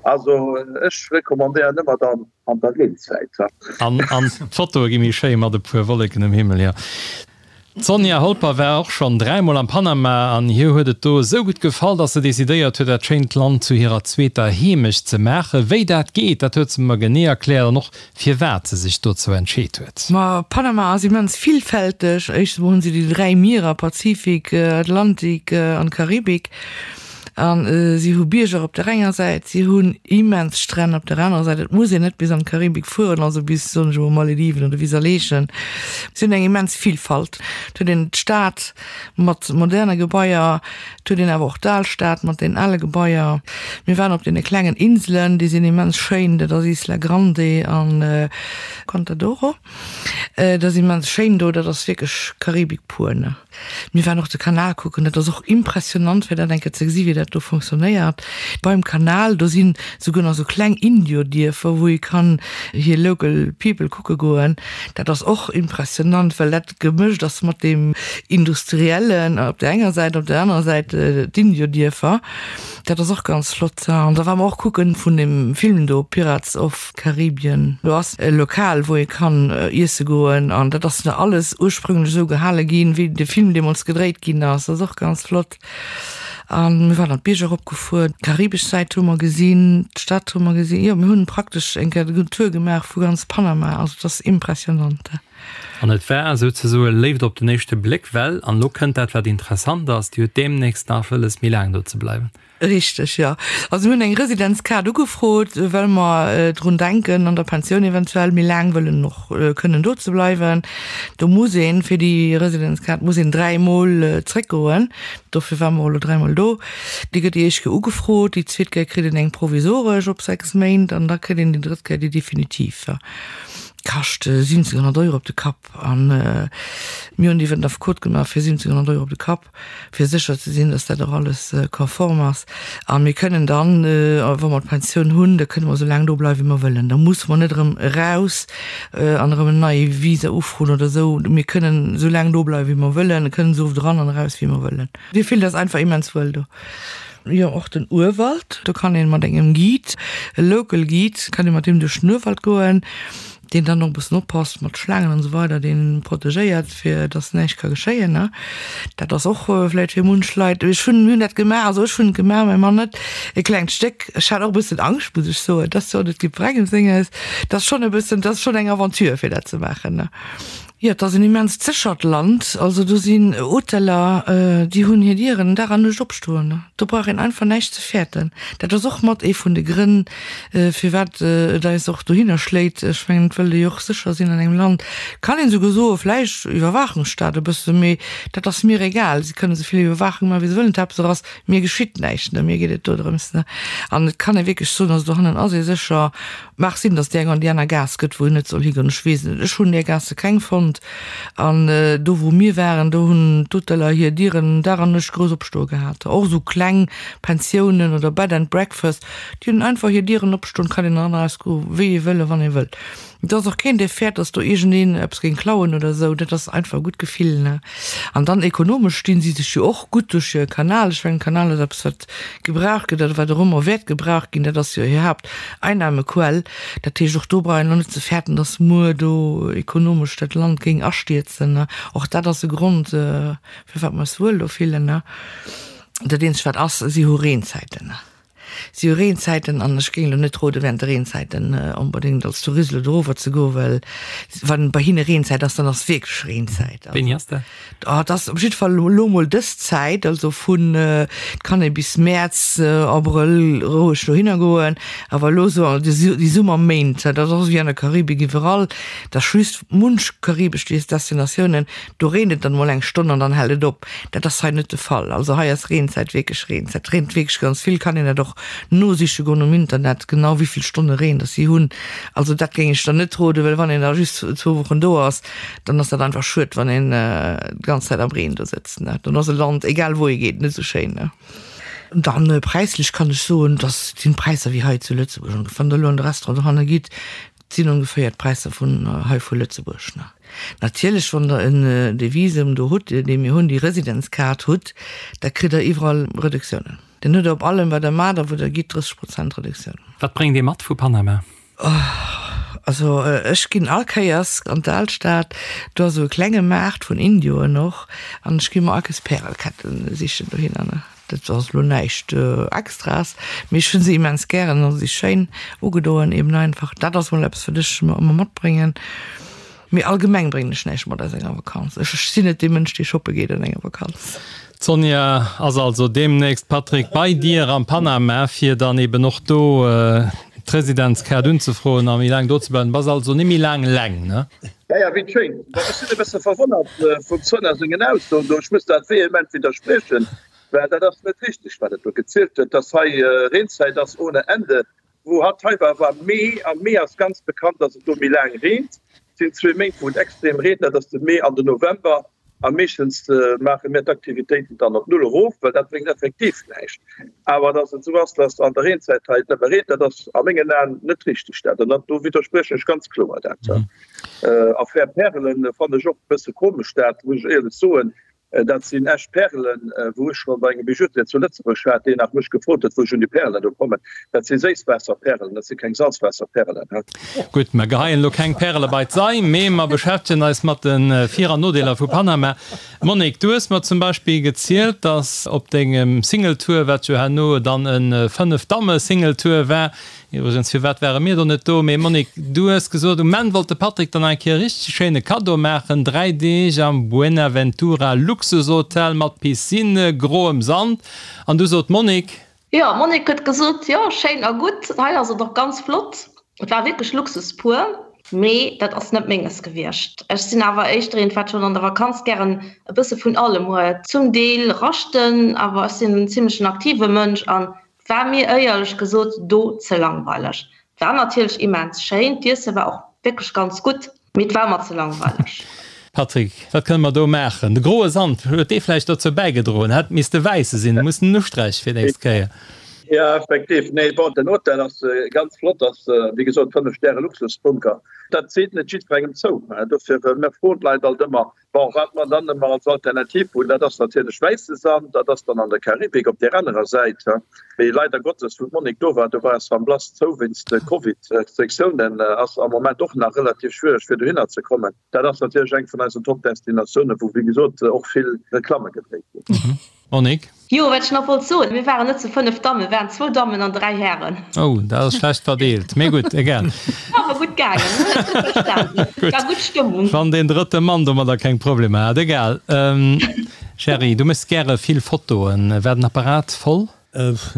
Also ech recommandéieren ëmmer dann an der Reenzäit. An d'Fotoe gi méi schéi mat e puer Wolleken um Himmel, jo. D'Sonja Holper war och schonn dräimol am Panama an hir huet et do esou gutt gefall, dass se decidéiert huet, dat schéint Land zu hirer zweeter Heemecht ze maachen. Wéi dat geet, dat huet se mer genee erkläert an och firwat se sech dozou entscheet huet. Ma Panama ass immens villfälteg. Éischtens emol hunn se déi 3 Mierer, Pazifik, Atlantik an Karibik. A si hu Bierger op der enger Säit, si hunn immens Stränn op der anerer Säit. Et muss een net bis an d'Karibik fueren, also bis, soen ech emol, Malediven oder bis Aleechen. Si hunn eng immens Vilfalt. Et huet een d'Stad mat moderne Gebaier, et huet een awer och d'Alstad mat den ale Gebaier. Mir waren op deene klengen Inselen, déi sinn immens schéin, dat ass Isla Grande an Contadoro. Dat ass immens schéin do, dat ass wierklech Karibik pur, ne. Mir waren och de Kanal kucken, dat ass och impressionant fir dat eng Kéier ze gesi wéi dat do fonctionnéiert. Beim Kanal do sinn souguer nach sou kleng Indiodierfer wou ee kann hir local people kucke goen. Dat ass och impressionant, well dat gemëscht ass mat deem industriellen op der enger Säit, op der anerer Säit d'Indiodierfer. Dat ass och ganz flott. An da ware mer och kucken vun deem Film do Pirates of. Karibien. Do ass e Lokal, wou ee kann iesse goen an dat ass nach alles ursprünglech esou gehale ginn, wéi de Film deemools gedréit ginn ass. Dat ass och ganz flott. A mir waren an d'Bierger eropgefuer, d'karibesch Säit hu mer gesinn, d'Stad hu mer gesinn. Jo, mir hunn praktesch eng Kéier den Tour gemaach vu ganz Panama. Also et ass impressionant. An et war souzesoe Léift op den éischte Bléck, well, an elo kënnt dat, wat interessant ass, Dir hutt deemnächst nach wëlles, méi laang do ze bleiwen. Richteg, jo. Also mir hunn eng Residenzkaart ugefrot, well mer drun denken, an der Pensioun eventuell méi laang wëllen och kënnen do ze bleiwen. Do muss een, fir déi Residenzkaart muss een dräimol zréckgoen. Dofir ware mer och elo dräimol do. Déi gëtt déi éischt Kéier ugefrot, déi zweet Kéier kritt een eng provisoresch op 6 Méint an da kritt een déi drëtt Kéier déi definitiv. Kascht 1700 Euro op de Kapp. A mir hunn déi iwwer den Affekot gemaach fir 1700 Euro op de Kapp. fir sécher ze sinn, dass dat och alles konform ass. A mir kënnen dann, wa mer d'Pensioun hunn, da kënne mer esou laang do bleiwen, wéi mer wëllen. Da musse mer net erëm eraus an erëm en neie Visa ufroen oder esou. Mir kënnen esou laang do bleiwen, wéi mer wëllen, kënnen esou oft eran an eraus, wéi mer wëllen. Mir fillen eis einfach immens wuel do. Jo, och den Urwald, do kann een mat engem Guide, e local Guide, kann ee mat deem duerch den Urwald goen. deen dann och e bëssen oppasst mat Schlaangen an esou weider, deen protegéiert, fir dass näischt ka geschéien, ne. Dat ass och vläicht fir munch Leit, ech hunn, mir hunn dat gemaach, also ech hunn et gemaach, mäi Mann net, e klengt Stéck. Ech hat och e bëssen Angscht, muss ech soen, et ass jo net jiddwerengem senges, et ass schonn e bëssen, et ass schonn eng Aventure fir dat ze maachen, ne. Jo, et ass en immenst séchert Land. Also do sinn Hoteller, déi hunn hir Dieren Dag an Nuecht opstoen. Do brauch een einfach näischt ze fäerten. Dat ass och mat ee vun de Grënn, firwat et eis och dohinner schléit. Ech mengen, et wëllt ee jo och sécher sinn an engem Land. Kann een esouguer soen, vläicht Iwwerwaachungsstaat e bësse, mee dat ass mir egal. Si kënnen esou vill Iwwerwaachung maachen, wéi se wëllen. D'Haaptsaach ass, mir geschitt näischt. Mir geet et dodrëms. An et kann ee wierklech soen, also dohannen ass ee sécher. Mag sinn, dass déi eng an déi aner Gaass gëtt, wou een net soll higoen, ech weess et net. Ech hunn där Gaasse keng fonnt. An do, wou mir waren, do hunn d'Hoteller hir Dieren Dag an Nuecht grouss opstoe gehat. Och esou kleng Pensiounen oder Bed and Breakfast, déi hunn einfach hir Dieren opstoen, kann een eran a raus goe wéi ee wëll a wann ee wëll. Et ass och keen, dee fäert, dass do iergendeen eppes géing klauen oder esou. Dat ass einfach e gutt Gefill, ne? An dann ekonomesch stinn si sech jo och gutt duerch hire Kanal. Ech mengen, Kanal ass eppes, wat gebraucht gëtt oder wat och ëmmer wäert gebraucht ginn. Dat ass jo hir Haapteinnahmequell. Dat heescht, och do brauch een elo net ze fäerten, dass muer do ekonomesch dat Land géing astierzen. Och dat ass e Grond, firwat mer eis wuel do fillen. Dat eenzegt wat ass, si hu Reenzäiten. Si hu Reenzäiten an ech géing elo net roden, während de Reenzäiten onbedéngt als Tourist elo dorower ze goen, well wann bei hinne Reenzäit ass, dann ass wierklech Reenzäit. Wéini ass dat? Oh, et ass op jidde Fall elo mol dës Zäit, also vun, et kann ee bis Mäerz, Abrëll roueg dohinner goen, awer elo esou déi Summerméint, dat ass och wéi an der Karibik iwwerall, et ass just munch karibesch Destinatiounen, do reent et dann mol eng Stonn an dann hält et op. Dat ass hei net de Fall. Also hei ass Reenzäit wierklech Reenzäit. Et reent wierklech ganz vill, kann een dat och nosiche goen um Internet, genau wéi vill Stonne Reen dass si hunn. Also dat géing ech dann net roden, well wann een da just zwou Wochen do ass, dann ass dat einfach schued, wann een d'ganz Zäit am Reen do sëtzt. Dann ass e Land, egal wou ee geet, net esou schéin. Dann präislech kann ech soen, dass sinn d'Präisser wéi hei zu Lëtzebuerg ongeféier. Wann Der elo an de Restaurant dohanne gitt. sinn ongeféier d'Präisser vun hei vu Lëtzebuerg. Natierlech, wann Der en dee Visum do hutt, dee mir hunn, déi Residenzkaart hutt, da kritt Der iwwerall Reduktiounen. Dann hutt Der op allem, wat Der maacht a wou Der gitt, 30 Prozent Reduktioun. Wat bréngt ee mat vu Panama? Also ech ginn all Kéiers an d'Alstad, do ass esou e klenge Maart vun Indioen och, an ech gi mer all Kéiers Pärelketten sichen dohinner. Dat ass elo näischt Extraes, mee ech hunn se immens gären a si schéin ugedoen eben einfach. Dat ass mol eppes, wat ech mer ëmmer matbréngen. Mee allgemeng bréngen ech näischt mat aus enger Vakanz. Ech sinn net dee Mënsch, dee shoppe geet an enger Vakanz. D'Sonja ass also deemnächst, Patrick, bei dir am Panama, fir dann eben och do d'Residenzkaart unzefroen a méi laang do ze bleiwen. Bass also net méi laang eleng, ne? Ja, ja, wéi schéin. Bon, ech sinn e bësse verwonnert vum Sonja sengen Aussoen do. Ech muss dat vehement widderspriechen, well dat ass net richteg, wat et do gezielt huet, dass hei Reenzäit ass ohne Ende. Wou hatt hei war, war Mee, am Mee ass ganz bekannt, dass et do méi laang reent. Et sinn zwee Méint, wou et extrem reent, dat ass de Mee an den November. A meeschtens maache mir d'Aktivitéiten dann op null erof, well dat bréngt effektiv näischt. Awer dass et esou ass, dass an der Reenzäit hei et nëmme reent, dat ass a mengen Aen net richteg. Dat, an do widderspriechen ech ganz kloer dat. Affär Pärelen fannen ech och e bësse komesch, dat muss ech éierlech soen. Dat sinn echt Pärelen, wou ech scho bei engem Bijoutier zu Lëtzebuerg war, deen nach mech gefrot huet, wou ech un déi Pärelen do kommen. Dat si Séisswaasserpärelen, dat si keng Salzwaasserpärelen. Gutt, mer geheien elo keng Pärele bei d'Sei, mee mer beschäftegen eis mat de Vir an Nodeeler vu Panama. Monique, du hues mer zum Beispill gezielt, dass op dengem Singletour, wat jo herno dann e Fënnef-Damme-Singletour war, Iwwregens, firwat ware mir do net do? Mee Monique, du hues gesot, um Enn wollt de Patrick dann eng Kéier e richteg schéine Kaddo maachen, 3 Deeg am Buenaventura Luxushotel mat Piscine, groem Sand. An du sot d'Monique. Jo, d'Monique huet gesot, jo, schéin a gutt, hei ass et och ganz flott. Et war wierklech Luxus pur, mee dat ass net menges gewiescht. Ech sinn awer éischter eent, wat schonn an der Vakanz gären e bësse vun allem huet. Zum Deel raschten, awer ech sinn en zimmlechen aktive Mënsch an War mir éierlech gesot do ze langweileg. War natierlech immens schéin, d'Iesse war och wierklech ganz gutt, mee et war mer ze langweileg. Patrick, wat kënne mer do maachen? De groe Sand, huet dee vläicht dozou bäigedroen? Hätt misste wäisse sinn, muss en usträiche fir d'nächst Kéier. Jo, effektiv. Nee, bon, den Hotel ass ganz flott, ass wéi gesot 5 Stäre Luxusbunker. Dat seet net jiddwerengem zou, dofir mir froen d'Leit alt ëmmer, Bon, wat mer dann ëmmer als Alternativ hunn, dat ass natierlech wäisse Sand, dat ass dann an der Karibik op där anerer Säit. Mee leider Gottes, wou d'Monique do war, do war San Blas zou wéinst de Covid-Restriktiounen, ass am Moment och nach relativ schwiereg fir dohinner ze kommen. Dat ass natierlech eng vun eisen Top-Destinatiounen, wou wéi gesot och vill Reklamme gedréit ginn. Monique? Jo, wat ech nach wollt soen, mir waren net zu 5 Dammen, mir waren zwou Dammen an 3 Hären. Oh, dat ass schlecht verdeelt, mee gutt, egal. Awer gutt gaangen, hunn et gutt verstanen. Gutt. War gutt Stëmmung. Wann deen drëtte Mann domadder keng Problemer hat, egal. Gerry, du méchs gäre vill Fotoen. War den Apparat voll?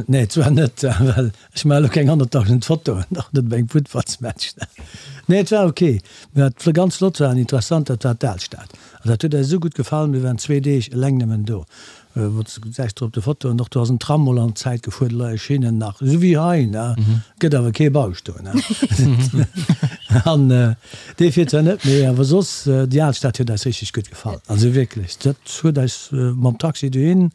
Nee, zwar net, well ech maache elo keng 100.000 Fotoen, och net op engem Futtballsmatch. Nee, et war ok. Mee wat ganz flott war an interessant, dat war d'Alstad. An dat huet eis esou gutt gefall, mir waren zwee Deeg eleng nëmmen do. Wou s gesäis de op de Fotoen och, do ass en Tram mol an d'Zäit gefuer, do leie Schinnen nach, esou wéi hei, ne? Gëtt awer kee Bauscht do, ne? An dee fiert zwar net méi, awer soss, déi Alstad huet eis richteg gutt gefall. Also wierklech, dat huet eis mam Taxi dohin,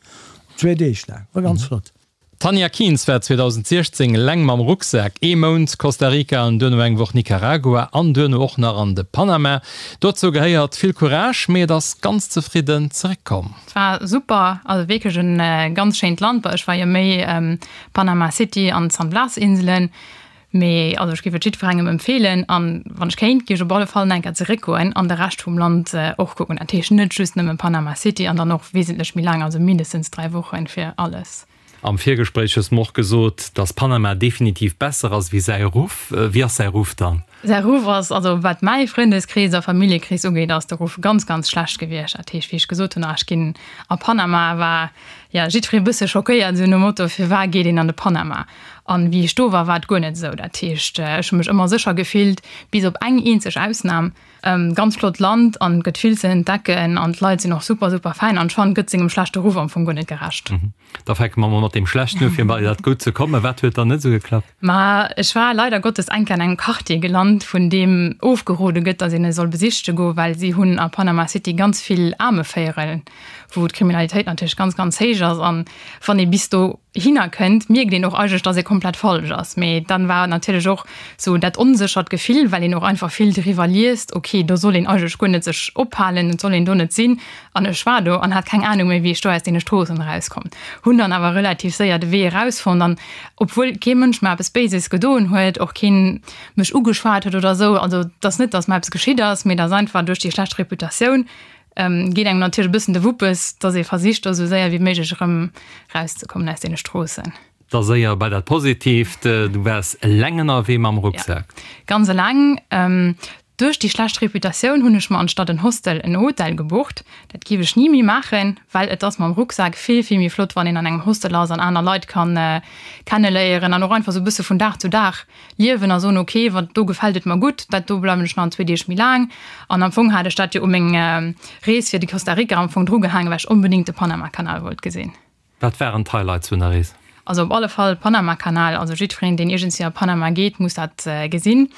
zwee Deeg laang, war ganz flott. D'Tanja Kienz war 2016 eleng mam Rucksak ee Mount Costa Rica an duerno eng Woch Nicaragua an duerno och nach an de Panama. Dozou gehéiert vill Courage, mee et ass ganz zefridden zeréckkomm. Et war super, also wierklech en ganz schéint Land. Bon ech war jo méi Panama City an d'San Blas Inselen, Mee also ech géif et jiddwerengem empfeelen an wann ech kéint, géif ech op alle Fall nach eng Kéier zeréckgoen an de Rescht vum Land och kucken. Dat heescht net just nëmme Panama City an dann och wesentlech méi laang, also mindestens 3 Wochen fir alles. Am Virgespréich hues de mer och gesot, dass Panama definitiv besser ass wéi säi Ruff. Wéi ass säi Ruff dann? Säi Ruff ass, also wat mäi Frëndeskrees a Familljekrees ugeet, ass de Ruff ganz, ganz schlecht gewiescht. Dat heescht, wéi ech gesot hunn, ah ech ginn a Panama, war jo jiddweree bësse schockéiert, esou nom Motto, firwat geet een an de Panama? An wéi ech do war, war et guer net esou. Dat heescht, ech hu mech ëmmer sécher gefillt, bis op eng eenzeg Ausnam. Ganz flott Land an et gëtt vill ze entdecken an d'Leit sinn och super, super fäin an ech fannen, et gëtt sengem schlechte Ruff am Fong guer net gerecht. Da fänke mer mol mat deem Schlechten u fir bei dat Gutt ze kommen. Wat huet dann net esou geklappt? Ma ech war leider Gottes eng Kéier an engem Quartier gelant, vun deem ofgerode gëtt, datt een e soll besichte goen, well si hunn a Panama City ganz vill Aarmevéierel, wou d'Kriminalitéit natierlech ganz, ganz héich ass an wann ee bis do. Hinner kënnt, mierkt een och eigentlech, dass ee komplett falsch ass. Mee dann war natierlech och sou dat onséchert Gefill, well een och einfach vill driwwer liest, ok, do soll een eigentlech guer net sech ophalen, et soll een do net sinn. An ech war do an hat keng Anung méi, wéi ech do aus deene Stroossen erauskomm. Hunn dann awer relativ séier de Wee erausfonnt an obwuel kee Mënsch mer eppes Béises gedoen huet, och keen mech ugeschwat huet oder sou, also et ass net, dass mer eppes geschitt ass, mee et ass einfach duerch déi schlecht Reputatioun, Geet engem natierlech e bëssen de Wuppes, dass ee versicht do esou séier wéi méiglech erëm rauszekommen aus deene Stroossen. Da séier bei dat Positiivt, Du waars eleng ënnerwee mam Rucksak? Jo, ganz eleng. Duerch déi schlecht Reputatioun hunn ech mer anstatt en Hostel en Hotel gebucht. Dat géif ech ni méi maachen, well et ass mam Rucksak vill, vill méi flott, wann een an engem Hostel ass an aner Leit kann kenneléieren an och einfach esou e bësse vun Dag zu Dag liewen a soen, ok, wat do gefält et mer gutt, dat do bleiwen ech nach zwee Deeg méi laang. An am Fong hat ech dat jo u meng Rees fir de Costa Rica am Fong drugehaangen, well ech onbedéngt de Panamakanal wollt gesinn. Wat waren d'Highlights vun der Rees? Also op alle Fall Panamakanal, also jiddwereen deen iergendswéi a Panama geet, muss dat gesinn.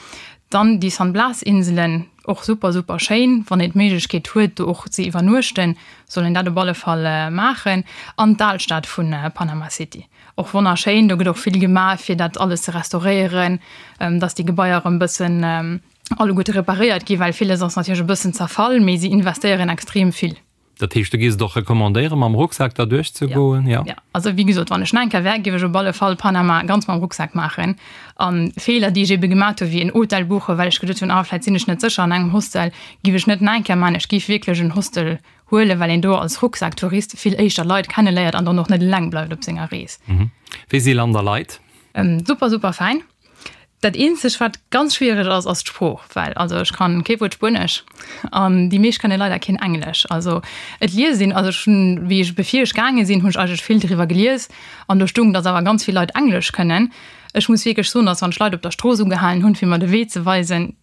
Dann déi San Blas Inselen, och super super schéin, wann een d'Méiglechkeet huet do och ze iwwernuechten, soll een dat op alle Fall maachen. An d'Alstad vun Panama City. Och wonnerschéin, do gëtt och vill gemaach fir dat alles ze restauréieren, dass déi Gebaier erëm bëssen alleguerte reparéiert ginn, well villes ass natierlech e bëssen zerfall, mee si investéieren extrem vill. Dat heescht, du géifs et och recommandéieren, mam Rucksak da duerchzegoen? Jo. Jo, also wéi gesot, wann ech nach eng Kéier wär, géif ech op alle Fall Panama ganz mam Rucksak maachen. A Feeler, déi ech ebe gemaat hunn, wéi en Hotel buchen, well ech geduet hunn, ah vläit sinn ech net sécher an engem Hostel, géif ech net nach eng Kéier maachen. Ech géif wierklech en Hostel Huelen, well een do als Rucksacktourist vill éischter Leit kenneléiert an dann och net eleng bleift op senger Rees. Wéi si Land a Leit? Super, super fäin. Dat eenzegt wat ganz schwiereg ass, ass d'Sprooch, well also ech kann kee Wuert Spuenesch an déi meescht kënne leider keen Englesch. Also et liest een, also ech hunn, wéi ech bevir ech gaange sinn, hunn ech eigentlech vill driwwer gelies an do stung, datt awer ganz vill Leit Englesch kënnen. Ech muss wierklech soen, datt wann ech Leit op der Strooss ugehalen hunn, fir mer de Wee ze weisen,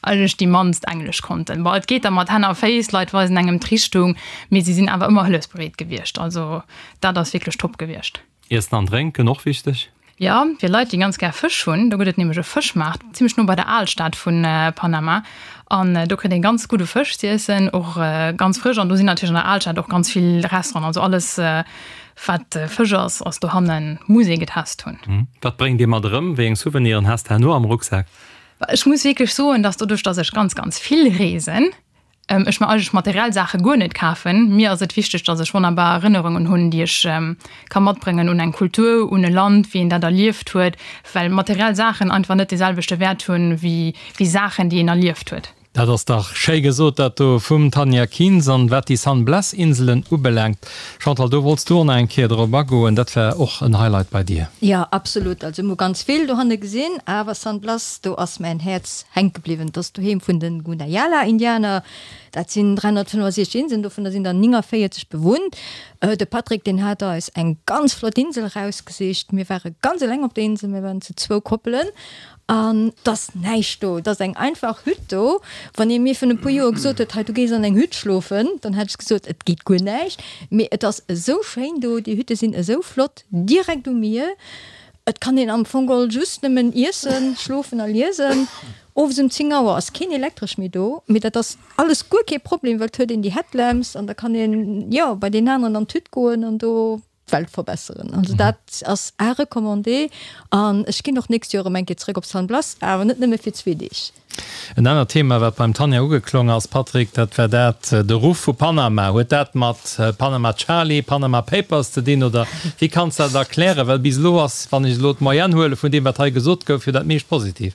Eigentlech déi mannst Englesch konnten. Bon, et geet da mat Hänn a Féiss, d'Leit weisen engem d'Richtung, mee si sinn awer ëmmer hëllefsbereet gewiescht. Also dat ass wierklech top gewiescht. Iessen an Drénken, och wichteg. Jo, fir Leit, déi ganz gär Fësch hunn, do gëtt et nämlech e Fëschmaart zimmlech no bei der Alstad vu Panama. An do kritt ee ganz gudde Fësch z'iessen, och ganz frësch. An do sinn natierlech an der Alstad och ganz vill Restauranten. Also alles, wat Fësch ass, ass dohannen, muss ee getest hunn. Wat bréngt ee mat erëm? Wéi eng Souveniren has de herno am Rucksak? Ech muss wierklech soen, dass doduerch, dass ech ganz, ganz vill reesen, ech mer eigentlech materiell Saache guer net kafen. Mir ass et wichteg, dass ech wonnerbar Erënnerungen hunn, déi ech ka matbréngen un eng Kultur, un e Land, wéi een dat erlieft huet, well materiell Saachen einfach net dee selwechte Wäert hunn, wéi Saachen, déi een erlieft huet. Dat ass dach schéi gesot, dat do vum Tanja Kienz. An wat déi San Blas Inselen ubelaangt, Chantal, do wollts du och nach eng Kéier drop agoen, dat war och en Highlight bei dir. Jo, absolut. Also mir hu ganz vill dohanne gesinn, awer San Blas, do ass mäin Häerz hänke bliwwen. Dat ass d'Doheem vun de Gunayala Indianer. Dat sinn 365 Inseln, dovunner sinn der 49 bewunnt. De Patrick, deen hat eis eng ganz flott Insel erausgesicht. Mir ware ganz eleng op der Insel, mir waren zu zwou Koppelen. An 't ass näischt do, 't ass eng einfach Hütt do. Wann ee mir virun e puer Joer gesot huet, hei du gees an eng Hütt schlofen, dann hätt ech gesot, et geet guer näischt. Mee et ass esou schéin do, déi Hütte sinn esou flott, direkt um Mier. Et kann een am Fong geholl just nëmmen iessen, schlofen a liesen. Owes um 10 Auer ass keen Elektresch méi do, mee dat ass alles guer kee Problem, well 't huet een déi Headlamps an da kann een, jo, bei deen aneren an d'Hütt goen an do. d'Welt verbesseren. Also dat ass à recommander an ech ginn och d'nächst Joer erëm eng Kéier zrëck op San Blas, awer net nëmme fir zwee Deeg. En anert Thema, wat beim Tanja ugeklong ass, Patrick, dat war dat, de Ruff vu Panama. Huet dat mat Panama Charlie, Panama Papers ze dinn oder wéi kanns de dat erklären? Well bis elo ass, wann ech elo d'Moyenne huele vun deem, wat hei gesot gouf, jo dat meescht positiv.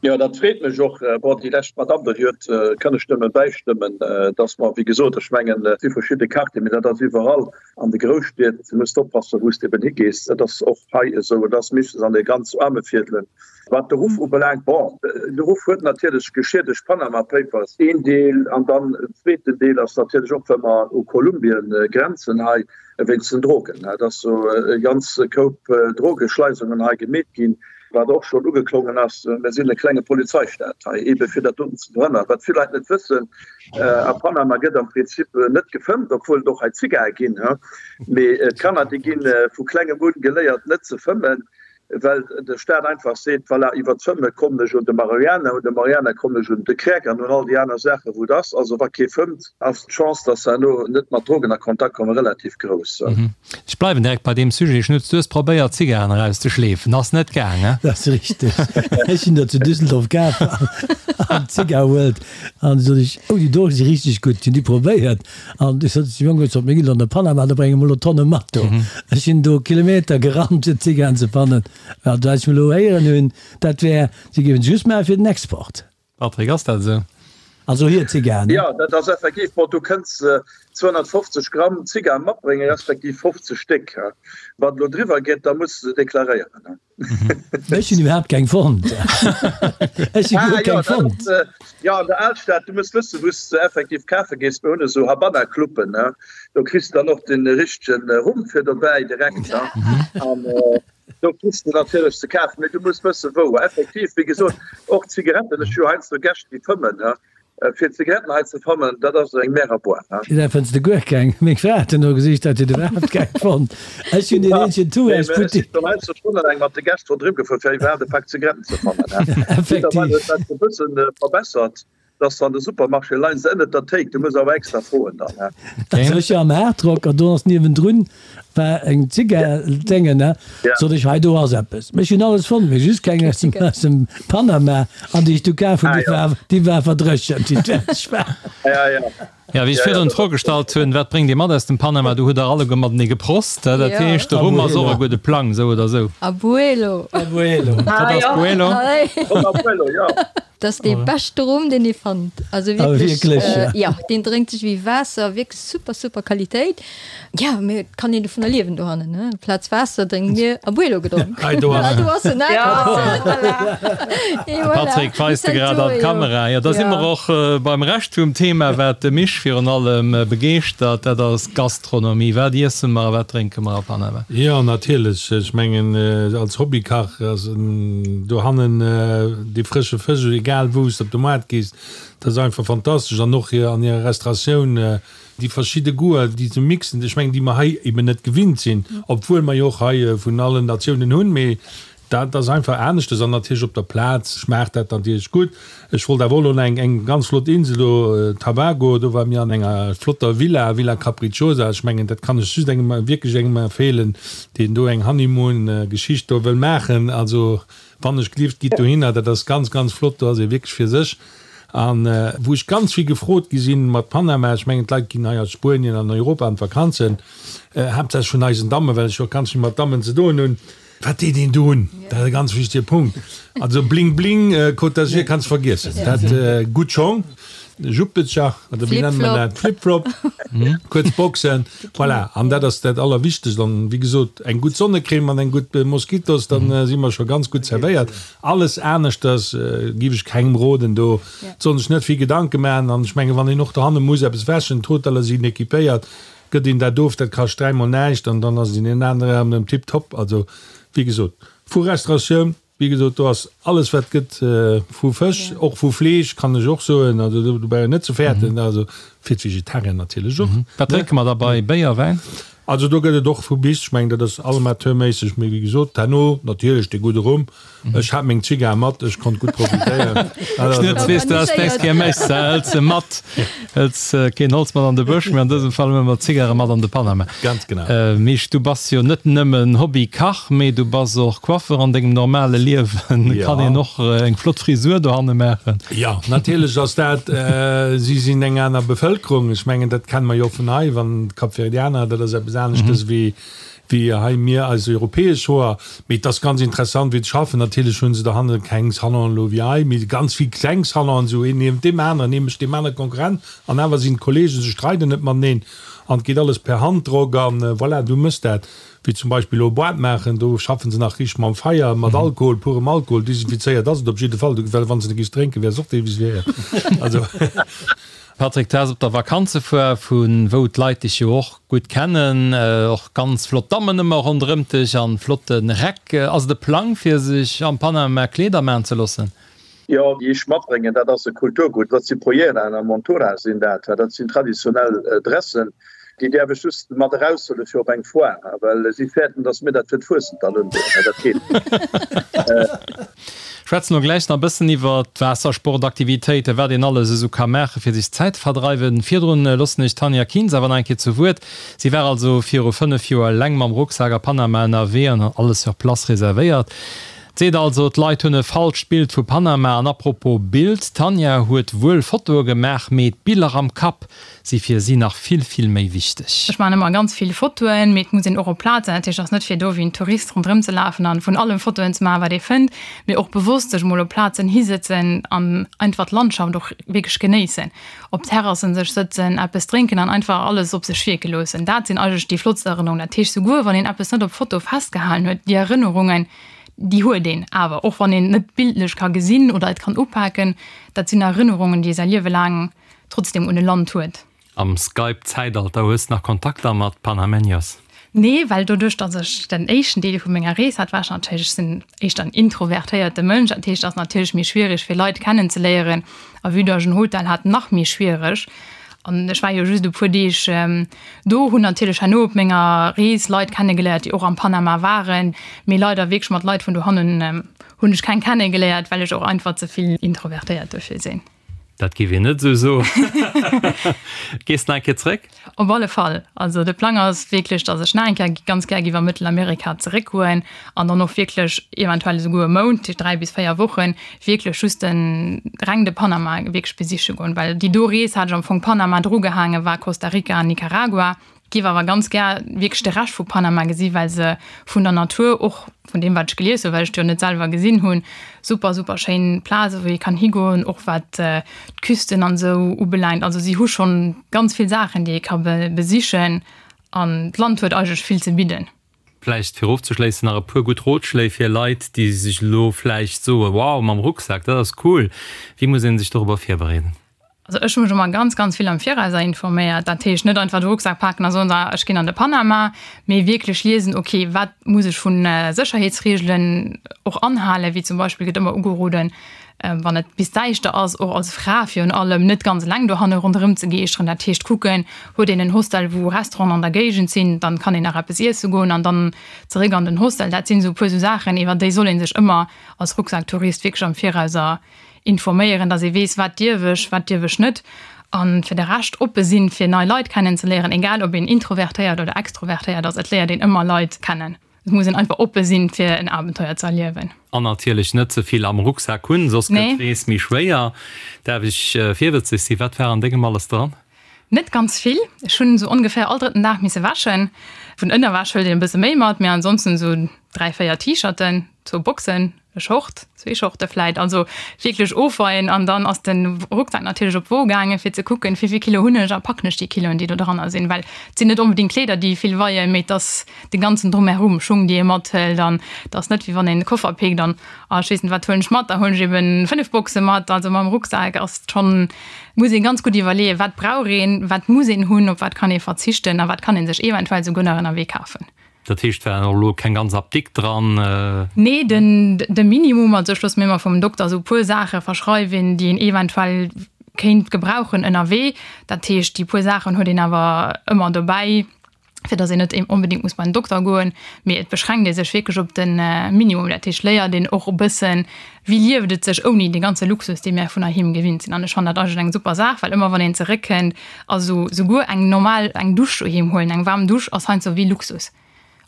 Jo, dat freet mech och. Bon, déi lescht Madamm do, déi huet, kann ech nëmme bäistëmmen, dass mer, wéi gesot, ech mengen, et si verschidde Quartieren, mee dat ass iwwerall an de Grousstied, du muss oppassen, wou s de eben higees. Dat ass och hei esou, et ass meeschtens an de ganz aarme Viertelen. Wat de Ruff ubelaangt, bon, de Ruff huet natierlech geschiedegt, Panama Papers, een Deel, an dann en zweeten Deel ass natierlech och, well mer u Kolumbien grenzen hei, wéinst den Drogen. Et ass jo e ganz Koup Drogeschleisungen hei gemeet ginn. Wat och schonn ugeklongen ass, Mir sinn e klenge Polizeistaat hei, eebe fir dat doten ze verhënnern. Wat vill Leit net wëssen, A Panama gëtt am Prinzip net gefëmmt, obwuel et och hei Zigae ginn. Mee d'Kanner, déi gi vu klengem un geléiert, net ze fëmmen. Well de Staat einfach seet, voilà, iwwer d'Fëmme kommen ech un de Marihuana, un de Marihuana kommen ech un de Crack an un all déi aner Saachen, wou et ass. Also wa kee fëmmt, ass d'Chance, dass se herno net mat Drogen a Kontakt kommen, relativ grouss. Ech bleiwen direkt bei deem Sujet, Schnutz, du hues probéiert Zigaren erauszeschleefen, ass net gaang, he? Dat ass richteg. Ech sinn der zu Düsseldorf kaf an d'Zigar World an du sot ech, oh déi do si richteg gutt, hunn déi probéiert An du sot de Jong, ech sot, mir ginn an de Panama, do brénge mer elo Tonne mat do. Ech sinn do Kilometer gerannt, fir Zigaretten ze fannen. Wat ech elo héieren hunn, dat wär, si géifen se just maache fir den Export. Patrick, ass dat esou? Also hir Zigaretten. Jo, dat ass effektiv. Bon, du kënns 250 Gramm Zigar matbréngen, respektiv 50 Stéck. Wann et elo driwwer geet, da muss de se deklaréieren. Ech hunn iwwerhaapt keng fonnt. Ech hu guer keng fonnt. Jo, an der Alstad, du muss wëssen, wou s de effektiv kafe gees. Mir hunn esou Habanna-Cluben, ne? Do kriss de dann och de richtege Rum fir dobäi direkt, ne? An do kriss de natierlech ze kafen, mee du muss wëssen, wou. Effektiv, wéi gesot, och d'Zigaretten, ech hu jo heiansdo Gäscht, déi fëmmen, ne? Fir Zigaretten hei ze fannen, dat ass eng Mer à boire, he? Dat fënns de guer keng. Meng Fra hat duerno gesicht, dat huet iwwerhaapt keng fonnt. Ech hunn deen eenzegen Touristbuttek. Ech sinn heiansdo stonnelaang mat de Gäscht ronderëm gefuer, fir iwwerhaapt e Pak Zigaretten ze fannen, he? Effektiv. Mëttlerweil huet dat e bëssen verbessert, dass se an de Supermarché leien se ënnert der Théik. Du muss awer extra froen dann, he? Also ech war am Hardrock an do ass niewendrun War eng Zigar-Déngen, ne? Sot ech, hei do ass eppes. Ech hunn alles fonnt, mee just keng aus dem, aus dem Panama. An déi ech du kaf hunn, déi war, déi war verdréchent, déi fäerdeg war. Jo, wéi ech virdrun d'Fro gestallt hunn, wat bréngt Dir mat aus dem Panama, do hutt Der alleguer matenee geprost. Dat heescht, de Rum ass och e gudde Plang, esou oder esou. Abuelo. Abuelo. Wat ass Buelo? Abuelo, jo. Dat ass dee beschte Rum, deen ee fannt. Also wierklech, jo, deen drénkt sech wéi Waasser, wierklech super, super Qualitéit. Jo, mee et kann een dovunner liewen dohannen, ne? Amplaz Waasser drénke mir Abuelo gedronk. Hei do ass en. Do ass en, ne? De Patrick weist de grad an d'Kamera. Jo, da si mer och beim Rescht vum Thema, wat de Misch virun allem begeeschtert, dat ass d'Gastronomie. Wat iesse mer a wat drénke mer a Panama? Jo, natierlech. Ech mengen, als Hobbykach ass dohannen dee frësche Fësch, egal wou s de op de Moart gees, dat ass einfach fantastesch. An och an hirer Restauratioun, déi verschidde Goûter, déi se mixen, ech mengen, déi mer hei eben net gewinnt sinn, obwuel mer jo och hei vun allen Natiounen hunn, mee Dat ass einfach aneschtes an natierlech op der Plaz schmaacht dat natierlech gutt. Ech wollt awer och elo eng eng ganz flott Insel do, Tabago, do ware mir an enger flotter Villa, Villa Capricciosa. Ech mengen, dat kann ech just engem, wierklech engem empfeelen, deen do eng Honeymoon-Geschicht do wëll maachen. Also wann ech gelift, gitt dohinner, dat ass ganz, ganz flott, do ass ee wierklech fir sech. An wou ech ganz vill gefrot gi sinn mat Panama, ech mengen d'Leit ginn hei aus Spuenien an Europa an d'Vakanzen, haaptsächlech vun eisen Dammen, well ech jo och ganz vill mat Dammen ze doen hunn, Wat deet een do un? Dat ass e ganz wichtege Punkt. Also Bling Bling, Côte d'Azur kanns vergiessen. Dat gutt Schong, Juppescher oder wéi nennt man dat? Flip-Flop, kuerz Boxen, voilà. An dat ass dat Allerwichtegst. An wéi gesot, eng gutt Sonnecrème an eng gutt Moskitos, dann si mer scho ganz gutt zerwéiert. Alles aneschters giff ech kengem roden. Do soll sech net vill Gedanke maachen. An ech menge wann een och dohanne muss eppes wäschen, d'Hoteller sinn equipéiert, Gëtt een dat of, dat kascht dräimol näischt an dann ass et een anere Raum erëm tiptop. Also, wéi gesot, vu Restauratioun, wéi gesot, do ass alles wat gëtt vu Fësch, och vu Fleesch kann ech och soen, also do brauch een net ze fäerten, also fir d'Vegetarier natierlech och. Wat drénke mer da bei Béier, Wäin? Also do gëtt et och vu bis, ech mengen dat ass amateurméisseg, mee wéi gesot, herno natierlech de gudde Rum. Ech hat meng Zigar mat, ech konnt gutt profitéieren. Schnutz, weess du, dass d'nächst Kéier méchs, hëls se mat, hëls keen Holz mat an de Bësch, mee an dësem Fall huele mer d'Zigare mat an de Panama. Ganz genau. Misch, du bass jo net nëmmen Hobby-Kach, mee du bass och Coiffeur an dengem normale Liewen. Kann een och eng flott Frisur dohanne maachen? Jo, natierlech ass dat, si sinn eng aner Bevëlkerung. Ech mengen, dat kenne mer jo och vun hei, wann d'Kapverdianer, dat ass eppes aneschtes wéi wéi hei mir eis europäesch Hoer. Mee et ass ganz interessant wéi se schaffen. Natierlech hu se dohanne keng Salonen elo wéi hei, mee ganz vill kleng Salonen, esou een niewent deem aneren, ee mécht deem anere Konkurrenz an awer sinn d'Kollegen, se streiden net mateneen an et geet alles per Handdrock an voilà, du méchs dat. Wéi zum Beispill elo e Boîte maachen, do schaffen se nach richteg mam Feier, mat Alkohol, purem Alkohol, desinfizéiert ass et op jidde Fall, well wann s de giffs drénken, wäers och desinfizéiert. Also. Patrick, du has op der Vakanzefoire, vu wou d'Leit dech jo och gutt kennen, och ganz flott Dammen ëmmer ronderëmt dech an flotte Räck. Ass et e Plang fir sech am Panama Kleeder maan ze loossen? Jo, déi ech matbréngen, dat ass e Kulturgutt. Dat si Polleraen a Montura sinn dat. Dat sinn traditionell Dressen. Déi däerf ech just mat eraushuelen fir op eng Foire, well si fäerten, dass mir dat fir d'Fuessent dann undoen. Mä dat geet net. Schwätzen elo gläich nach e bëssen iwwer d'Waassersportaktivitéiten, wat een alles esou ka maachen, fir sech d'Zäit ze verdreiwen. Virdrun loossen ech d'Tanja Kienz awer nach eng Kéier zu Wuert. Si war also viru 5 Joer eleng mam Rucksak a Panama ënnerwee an hat alles sur place reservéiert. Seet also, d'Leit hunn e falscht Bild vu Panama. An apropos Bild, d'Tanja huet wuel Fotoe gemaach, mee d'Biller am Kapp si fir si nach vill, vill méi wichteg. Ech maachen ëmmer ganz vill Fotoen, mee et muss een och op Plaz sinn. Dat heescht, et ass net fir do wéi en Tourist ronderëm ze lafen an vun allem Fotoen ze maachen, wat ee fënnt, mee och bewosst sech mol op Plazen hisëtzen an einfach d'Landschaft och wierklech genéissen. Op Terrassen sech sëtzen, eppes drénken an einfach alles op sech wierke loossen. Dat sinn eigentlech déi flottst Erënnerungen. Dat heescht, souguer wann een eppes net op Foto festgehalen huet, déi Erënnerungen, déi huet een awer, och wann een net bildlech ka gesinn oder et kann upaken, dat sinn Erënnerungen, déi ee säi Liewe laang trotzdem un e Land huet. Am Skype-Zäitalter, hues de nach Kontakter mat Panameños? Nee, well doduerch, datt ech den éischten Deel vu menger Rees hat, war ech natierlech, ech sinn éischter en introvertéierte Mënsch, dat heescht, et ass natierlech méi schwiereg fir Leit kennenzeléieren a vue datt ech en Hotel hat, nach méi schwiereg. An ech war jo just e puer Deeg do, hunn natierlech herno op menger Rees Leit kennegeléiert, déi och am Panama waren, mee leider wierklech mat Leit vun dohannen hunn ech keng kennegeléiert, well ech och einfach ze vill introvertéiert duerfir sinn. Dat géif een net esou soen. Gees de nach eng Kéier zréck? Op alle Fall. Also de Plang ass wierklech, datt ech nach eng Kéier ganz gär géif a Mëttelamerika zeréckgoen an dann och wierklech eventuell esouguer e Mount, 3 bis 4 Wochen, wierklech just de reng de Panama wierklech besiche goen. Well déi do Rees hat ech am Fong Panama drugehaangen, war Costa Rica an Nicaragua. Giff awer ganz gär wierklech de Rescht vu Panama gesi well se vun der Natur, och vun deem wat ech gelies hunn, well ech et jo net selwer gesinn hunn, super super schéin Plaze wou ee kann higoen, och wat d'Küsten an esou ubelaangt. Also si hu schonn ganz vill Saachen déi ee ka besichen an d'Land huet eigentlech vill ze bidden. Vläicht fir ofzeschléissen nach e puer gutt Rotschléi fir Leit déi sech elo vläicht soen, wow mam Rucksak dat ass cool. Wéi muss ee sech dorobber virbereeden? Also ech hu mech ëmmer ganz, ganz vill am Virauser informéiert. Dat heescht net einfach de Rucksak paken a soen, ech ginn an de Panama, mee wierklech liesen, okay, wat muss ech vu Sécherheetsreegelen och anhalen, wéi zum Beispill gëtt ëmmer ugeroden, wann et bis däischter ass, och als Fra virun allem, net ganz eleng dohanne ronderëm ze geeschteren. Dat heescht kucken, huet een en Hostel, wou Restauranten an der Géigend sinn, dann kann een nach eppes iesse goen an dann zeréck an den Hostel. Dat sinn esou e puer esou Saachen, iwwer déi soll ee sech ëmmer als Rucksacktourist wierklech am Virauser informéieren, dass ee weess, wat dierf ech, wat dierf ech net. A fir de Rescht oppe sinn, fir nei Leit kennenzeléieren, egal ob een introvertéiert oder extrovertéiert ass, et léiert een ëmmer Leit kennen. Et muss een einfach oppe sinn, fir en Abenteuer ze erliewen. An natierlech net ze vill am Rucksak hunn, soss gëtt d'Rees méi schwéier. Däerf ech virwëtzeg sinn, wat war an dengem alles dran? Net ganz vill. Ech hunn esou ongeféier all drëtten Dag misse wäschen. Vun Ënnerwäsch hëlt een e bësse méi mat, mee ansonsten esou 3, 4 T-Shirten, zwou Boxen, e Short, zwee Shorte vläit. Also wierklech ofweien an dann ass de Rucksak natierlech op d'Wo gaangen, fir ze kucken, wéi vill Kilo hunn ech a packen ech déi Kiloen, déi do dranner sinn. Well et sinn net onbedéngt Kleeder, déi vill weien, mee et ass de ganzen Drumherum, Schung, déi ee mathëlt an et ass net wéi wann een e Koffer pickt an, ah ech weess net, wat huelen ech mat, da huelen ech eben 5 Boxe mat. Also mam Rucksak ass et schonn Muss ee ganz gutt iwwerleeën, wat brauch een, wat muss een hunn, op wat kann ee verzichten a wat kann ee sech eventuell souguer nach ënnerwee kafen. Dat heescht, war och elo keng ganz Apdikt dran? Nee, den de Minimum. Also ech loosse mir ëmmer vum Dokter esou e puer Saache verschreiween, déi een eventuell kéint gebrauchen ënnerwee. Dat heescht, déi puer Saachen huet een awer ëmmer dobäi. fir dass een net onbedéngt muss bei den Dokter goen, mee et beschränkt ee sech wierklech op de Minimum. Dat heescht, léiert een och e bëssen, wéi lieft et sech ouni dee ganze Luxus, dee mär vun heiheem gewinnt sinn. An ech fannen dat eigentlech eng super Saach, well ëmmer wann een zeréckkënnt, also souguer eng normal, eng Dusch doheem huelen, eng waarm Dusch ass heiansdo wéi Luxus,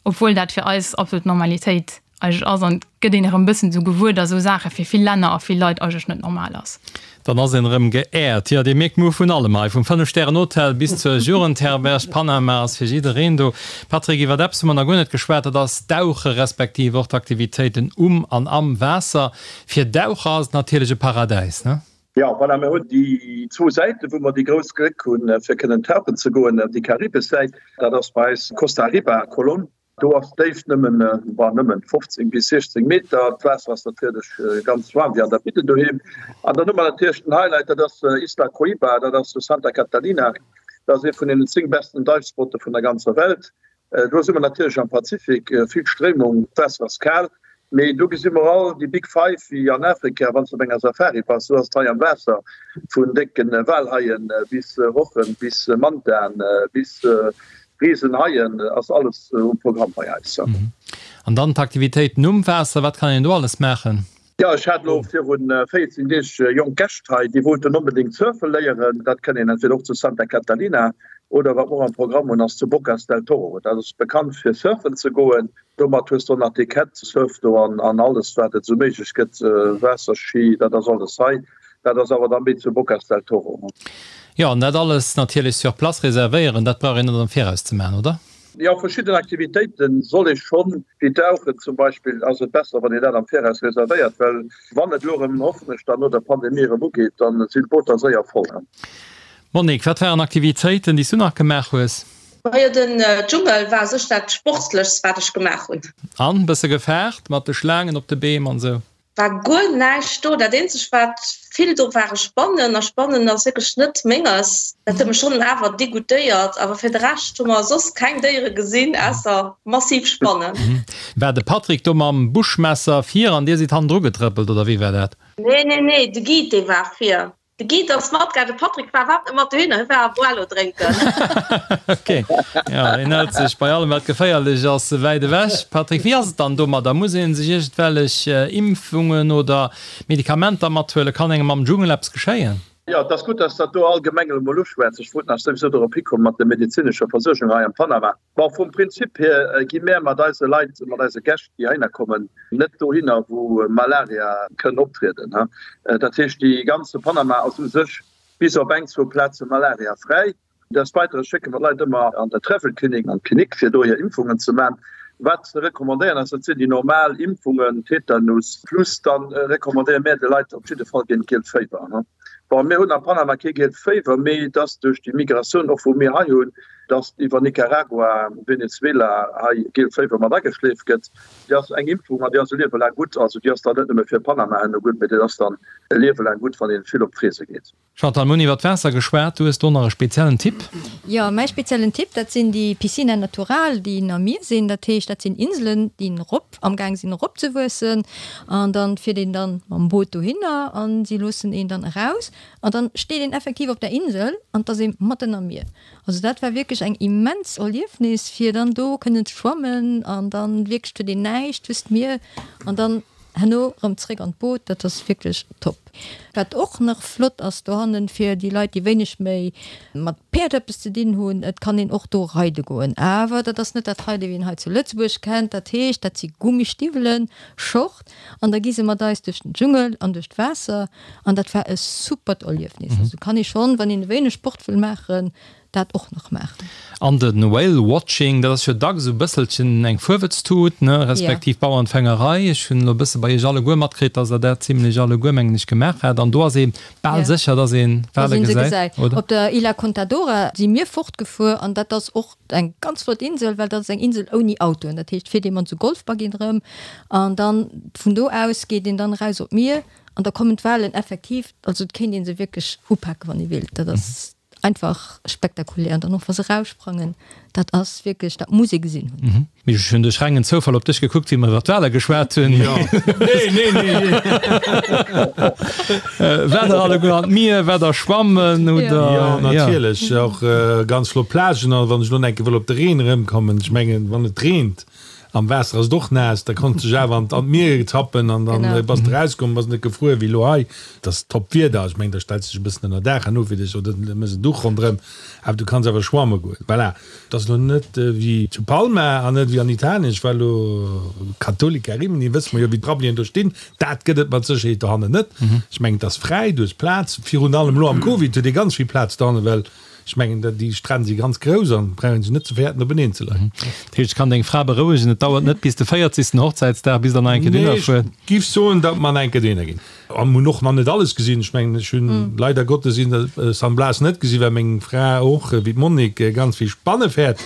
obwuel dat fir eis absolut Normalitéit eigentlech ass. An et gëtt een erëm e bëssen esou gewuer, dass esou Saache fir vill Länner a vill Leit eigentlech net normal ass. Dann ass een erëm geehrt. Jo, dir mierkt, mir hu vun allem hei, vum Fënnef-Stären-Hotel bis zur Jugendherberg. Panama ass fir jiddereen do. Patrick, iwwert eppes hu mer nach guer net geschwat, dat ass d'Dauche respektiv och d'Aktivitéiten um an am Waasser. Fir Daucher ass et natierlech e Paradäis, ne? Jo, voilà, mir hunn déi zwou Säiten, wou mer déi grouss Gléck hunn, fir kënnen tauchen ze goen. Déi karibesch Säit, dat ass bei eis Costa Riba, Colón. Do ass d'Déift nëmmen, bon, nëmmen 15 bis 16 Meter. D'Waasser ass natierlech ganz waarm, wéi an der Bidden doheem. An dann hu mer natierlech den Highlight, dat ass Isla Coiba, dat ass zu Santa Catalina. Dat ass ee vun deenen 10 besten Dive-Spotte vun der ganzer Welt. Do si mer natierlech am Pazifik, vill Stréimung, d'Waasser ass kal. Mee do gesi mer all déi Big Five wéi an Afrika, wann s de op enger Safari bass, sou ass et hei am Waasser, vun décken Walhaien bis Rochen, bis Mantaen, bis Risenhaien ass alles um Programm bei eis. An dann d'Aktivitéiten um Waasser, wat kann een do alles maachen? Jo, ech hat elo virun 14 Deeg jonk Gäscht hei, déi wollten onbedéngt surfe léieren. Dat kënnt een entweder och zu Santa Catalina oder wat mer och am Programm hunn, ass zu Bocas del Toro. Dat ass bekannt fir surfen ze goen. Domat hues de och nach d'Equette, Surf do an alles wat et esou méiglech gëtt, Waasserski, dat ass alles hei. Dat ass awer da méi zu Bocas del Toro. Jo, an dat alles natierlech sur place reservéieren, dat brauch een net am Viraus ze maachen, oder? Jo, verschidden Aktivitéite soll ee schonn, wéi Dauchen zum Beispill, ass et besser wann een dat am Viraus reservéiert, well wann et elo erëm, hoffen ech, dann no der Pandemie erëm ugeet, dann sinn d'Booter séier voll. Monique, wat waren Aktivitéiten, déi s du nach gemaach hues? Majo den Dschungel war sech dat sportlechst wat ech gemaach hunn. An bësse gefaart mat de Schlaangen op de Beem an sou? War guer näischt do, dat eenzegt wat vill do ware Spannen, a Spannen ass wierklech net menges, dat huet mech schonn awer degoutéiert, awer fir de Rescht hu mer soss keng Déiere gesinn ausser massiv Spannen. War de Patrick do mam Buschmesser vir an dir sidd hannendru getrëppelt oder wéi war dat? Nee nee nee, de Guide dee war vir. De Guide ass matgaang, de Patrick war iwwerhaapt net mat dohinner, hie war Abuelo drénken. Ok, jo, hien hält sech bei allem wat geféierlech ass wäit ewech. Patrick, wéi ass et dann domadder? Muss ee sech iergendwellech Impfungen oder Medikamenter mathuelen? Kann engem am Dschungel eppes geschéien? Jo, et ass gutt, dass dat do allgemeng elo mol uschwätz. Ech wollt nach souwisou dorop hikommen mat der medezinescher Versuergung hei am Panama. Bon, vum Prinzip hier gi mär mat eise Leit, mat eise Gäscht, déi heihinner kommen, net dohinner, wou Malaria kënn optrieden. Dat heescht, déi ganze Panama ass u sech bis op eng, zwou Plaze malariafräi. Des Weitere schécke mer d'Leit ëmmer an der Travel Clinic, an d'Klinik, fir do hir Impfungen ze man. Wat ze recommandéieren ass, dat sinn déi normal Impfungen, Tetanus, plus dann recommandéiere mär de Leit op jidde Fall géint d'Gielt Féiwer. Bon, mir hunn a Panama kee Gielt Féiwer, mee et ass duerch déi Migratioun och, wou mir hei hunn, dass iwwer Nicaragua, Venezuela hei Gielt Féiwer mat ageschleeft gëtt. Déi ass eng Impfung an déi ass e Liewe laang gutt. Also déi ass dann net nëmme fir Panama herno gutt, mee déi ass dann e Liewe laang gutt, wann ee vill op d'Reese geet. Chantal, mir hunn iwwer d'Waasser geschwat. Du hues do nach e speziellen Tipp? Jo, mäi speziellen Tipp, dat sinn déi Piscina natural, déi am Mier sinn. Dat heescht, dat sinn Inselen, déi erop, amgaang sinn eropzewuessen. An dann fiert een dann mam Boot dohinner an si loossen een dann eraus. An dann steet een effektiv op der Insel an 't ass ee matten am Mier. Also dat war wierklech eng immens Erliefnis fir dann do kënnen ze schwammen an dann wierklech huet een näischt, just d'Mier an dann herno rëm zréck an d'Boot. Dat ass wierklech top. Wat och nach flott ass dohannen fir déi Leit déi wéineg méi mat Päerd eppes ze dinn hunn, et kann een och do reide goen. Awer dat ass net dat Reide wéi een hei zu Lëtzebuerg kennt. Dat heescht dat si Gummistiwwelen, Short an da gi se mat eis duerch den Dschungel an duerch d'Waasser An dat war e supert Erliefnis. Also kann ee schonn, wann een e wéineg Sport wëll maachen, dat och nach maachen. An de Whale Watching, dat ass jo dacks esou e bësselchen eng Fuerwëtztut, ne, respektiv Bauernfängerei. Ech hunn elo e bësse bei Iech alleguer matkritt, dass Der dat zimlech alleguer, mengen ech, gemaach hat. An do ass ee bal sécher, dass ee Wale gesäit, oder? Op der Isla Contadora si mir fortgefuer an dat ass och eng ganz flott Insel, well dat ass eng Insel ouni Autoen. Dat heescht, fiert ee mat esou Golfbuggyen erëm an dann vun do aus geet een dann eraus op d'Mier. An da kommen d'Walen effektiv, also et kéint ee se wierklech upaken, wann ee wéilt. Dat ass einfach spektakulär. An dann och wa se eraussprangen, dat ass wierklech, dat muss ee gesinn hunn. Mee ech hunn duerch rengen Zoufall op dech gekuckt, wéi mer iwwer d'Wale geschwat hunn. Jo, nee, nee, nee. Waart der alleguer an d'Mier? Waart der schwammen oder? Jo, natierlech. Och ganz flott Plagen. A wann ech elo nach eng Kéier wëll op de Reen erëmkommen, ech mengen, wann et reent, Am Waasser ass et och naass, da konns dech awer an d'Mier tappen an dann bass de rauskomm, bass net gefruer wéi elo hei. Et ass top Wieder, ech mengen da stells de dech e bëssen ënner Daach herno fir dech oder mëss en Duch ronderëm, awer du kanns awer schwamme goen. Voilà, et ass elo net wéi zu Palma an net wéi an Italien. Ech war elo Cattolica Rimini, wësse mer jo wéi d'Rabbelien do stinn, dat gëtt et mat Sécherheet dohannen net. Ech mengen et ass fräi, du hues Plaz, virun allem elo am Covid huet ee ganz vill Plaz dohannen, well Ech mengen, déi Stränn si ganz grouss an brauch een sech net ze fäerten openeen ze leien. Dat heescht, ech kann deng Fra berouegen, et dauert net bis de 40. Hochzäitsdag, bis der nach eng Kéier dohinner fuert. Nee, ech giff soen, datt mer nach eng Kéier dohinner ginn. A mir hunn och nach net alles gesinn. Ech mengen, ech hunn leider Gottes San Blas net gesinn, well meng Fra och, wéi d'Monique, ganz vill Spanne fäert.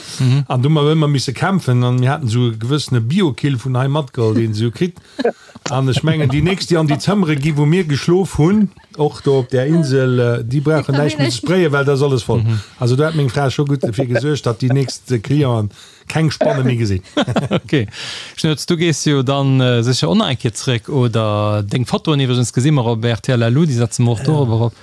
An do hu mer ëmmer misse kämpfen an mir haten esou e gewëssene Biokill vun hei matgeholl, deen se esou kritt. An ech mengen, déi nächst, déi an déi Zëmmere gi wou mir geschlof hunn. Och do op där Insel, déi brauchen näischt méi ze sprayen, well da ass alles voll. Also do hat meng Fra scho gutt derfir gesuergt, datt déi nächst Clienten keng Spanne méi gesinn. Ok. Schnooz, du gees jo dann sécher och nach eng Kéier zréck, oder? Deng Fotoen iwwregens gesi mer op rtl LU, déi setze mer och dorobber op.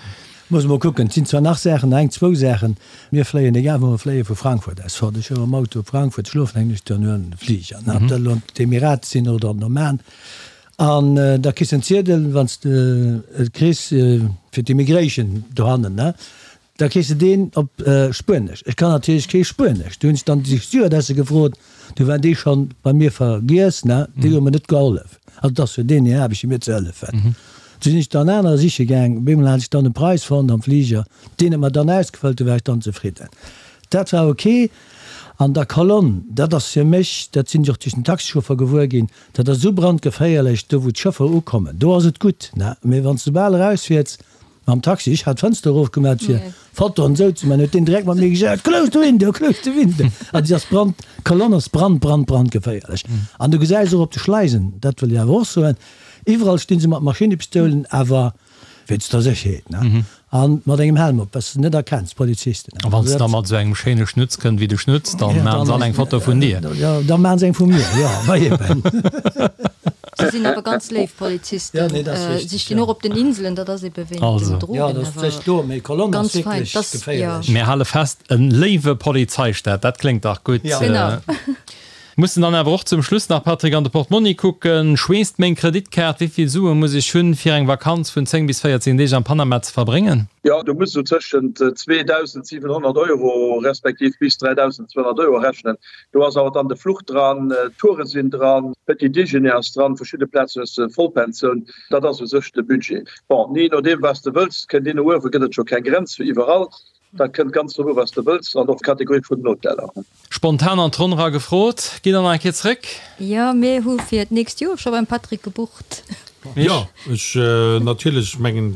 Muss mol kucken, et sinn zwar nach Saachen, nach eng, zwou Saachen. Mir fléien, egal wou mer fléien, vu Frankfurt aus fort. Ech hu mam Auto op Frankfurt, schlofen eng Nuecht, dann huelen de Fliger, ob dat elo an d'Emirate sinn oder an den Oman. An da kriss de en Ziedel, wann s de et kriss, fir d'Immigration dohannen, ne, da kriss de deen op Spuenesch. Ech kann natierlech kee Spuenesch. Du hunn ech dann déi Stewardesse gefrot, du waren déi schonn bei mir vergiess, ne, déi hu mer net gehollef. Also et ass jo deenen hir Aarbecht, fir mir ze hëllefen. Du sinn ech dann anerer siche gaang. Op eemol hat ech dann e Preis fonnt am Fliger, deen huet mer dann ausgefëllt, du war ech dann zefridden. Dat war ok. An der Kolonn, dat ass fir mech, dat sinn ech och duerch den Taxichauffer gewuer ginn, Dat ass esou brandgeféierlech, do wou d'Schëffer ukommen, do ass et gutt, ne, mee wann s de bal erausfiers mam Taxi, ech hat d'Fënster erofgemat fir Fotoen esou ze man, huet deen direkt mat mir gejaut, Close the window, close the window. Also déi ass brand, d'Kolonn ass brand, brand, brandgeféierlech. An du gesäis och op de Schleisen, dat wëll ech awer och soen, iwwerall sti se mat Maschinepistoulen, awer Wéinst der Sécherheet, ne? An mat engem Helm op, dass de net erkenns, d'Polizisten. A wann s de da mat esou engem schéine Schnutz kënnt wéi de Schnutz, dann maachen se all eng Foto vun dir. Jo, da maachen se eng vu mir, jo, ma eben. Se sinn awer ganz léif Polizisten. Si stinn och op den Inselen, dat ass ebe wéint den Drogen. Jo, dat ass sech do, mee Colonne ass wierklech geféierlech. Mir hale fest, en léiwe Polizeistaat, dat kléngt dach gutt. Genau. Mussen dann awer och zum Schluss nach, Patrick, an de Portmonni kucken. Schweesst meng Kreditkaart? Wéi vill Sue muss ech hunn, fir eng Vakanz vun 10 bis 14 Deeg am Panama ze verbréngen? Jo, do muss esou tëschent 2.700 Euro respektiv bis 3.200 Euro rechnen. Do ass awer dann de Fluch dran, d'Toure sinn dran, Petit Déjeuner ass dran, verschidde Plazen hues de Vollpensioun. Dat ass u sech de Budget. Bon, jee nodeem wat s de wëlls, kënnt een no uewe gëtt et scho keng Grenz fir iwwerall. Dat kënnt ganz drop u wat s de wëlls an och d'Kategorie vun den Hoteller. Spontan an d'Ronn era gefrot, Gitt der nach eng Kéier zréck? Jo, mir hu fir d'nächst Joer scho beim Patrick gebucht. Jo, ech natierlech. Ech mengen,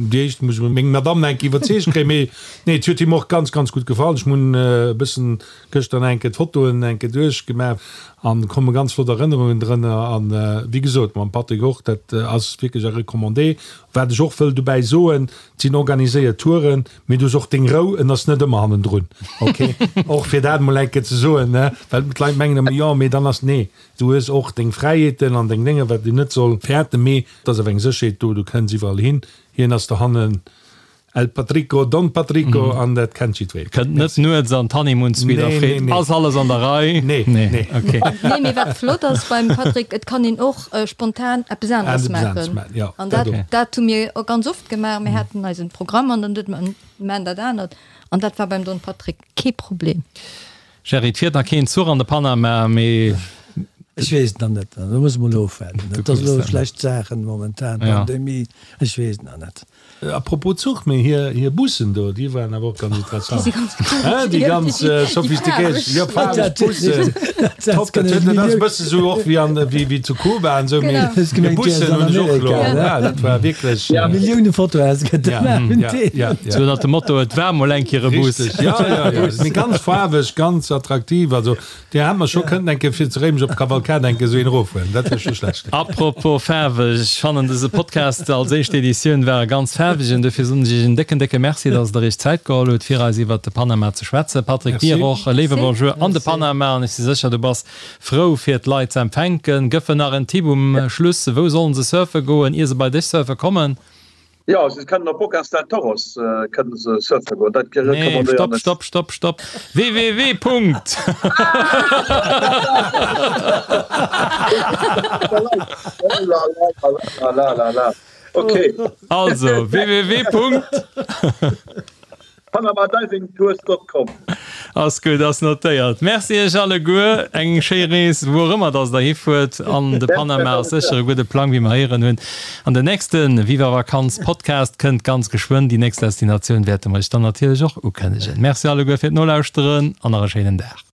déi éischt muss ech meng Madamm nach eng Kéier iwwerzeegt kréien. Mee nee, et huet him och ganz, ganz gutt gefall. Ech hunn e bëssen gëschter nach eng Kéier d'Fotoen eng Kéier duerchgemaach an komme ganz flott Erënnerungen drënner. An wéi gesot, mam Patrick och, dat ass wierklech a Recommandé. Wat ech och wëll dobäi soen, et sinn organiséiert Touren. Mee du hues och deng Rou, en ass net ëmmer hannendrun, ok? Och fir dat emol eng Kéier ze soen, ne? Well d'Leit mengen ëmmer, jo, mee dann ass, nee, du hues och deng Fräiheeten an deng Dénger, wat een net soll fäerten, mee et ass awer eng Sécherheet do, du kënns iwwerall hin. Hien ass dohannen El Patrico, Don Patrico, an dat kennt jiddwereen. Kënnt net nuets an d'Honeymoon Suite a freet, Ass alles an der Rei? Nee, nee. Ok. Nee, mee wat flott ass beim Patrick, et kann een och spontan eppes aneres maachen. An dat, dat hu mir ganz oft gemaach. Mir haten eisen Programm an dann duet mer, mir maachen dat anert. An dat war beim Don Patrick kee Problem. Gerry, et fiert nach keen Zuch an de Panama, mee. Ech weess et nach net. Do muss mol ofwaarden. Et ass elo schlecht Saachen momentan, Pandemie, ech weess et nach net. A propos Zuch, mee hir hir Bussen do, déi waren awer och ganz interessant. Déi si ganz cool. Hein, déi ganz sophistiquéiert, jo, faarweg Bussen. Top, dat huet, dat ass e bësse sou och wéi an, wéi wéi zu Kuba an esou, mee hir Bussen hunn ech och elo, ja, dat war wierklech. Millioune Fotoe gëtt et mar vun deenen. Ja, ja. Sou ënnert dem Motto, et war mol eng Kéier e Bus. Richteg, ja, ja, ja. Mee ganz faarweg, ganz attraktiv, also. Dir hätt mer scho kënnten eng Kéier fir zu Réimech op d'Kavalkad eng Kéier esou een erofhuelen, dat wär scho schlecht. Apropos faarweg, ech fannen dëse Podcast als éischt Editioun war e ganz faarwegen, dofir soen ech iech en décken décke Merci, dass der iech Zäit geholl hutt fir eis iwwert de Panama ze schwätzen. Patrick, dir och e léiwe Bonjour an de Panama an ech si sécher du bass frou fir d'Leit ze empfänken. Gëff en nach en Tipp um Schluss, wou sollen se surfe goen ier se bei dech surfe kommen? Jo, se kënnen op Bocas del Toros kënnen se surfe goen, dat Nee, recommandéieren stopp, ech. stopp, stopp, stopp! Www. Punkt. Oh la la la la la, okay. Also, www. Punkt. Panamadivingtours.com. Ass gutt, ass notéiert. Merci iech alleguer, eng schéi Rees wou och ëmmer dass der hifuert. An de Panama ass sécher e gudde Plang, wéi mer héieren hunn. An den nächste Viva Vakanz Podcast kënnt ganz geschwënn. Déi nächst Destinatioun wäerte mer iech dann natierlech och ukënnegen. Merci alleguer fir d'Nolauschteren an nach e schéinen Dag.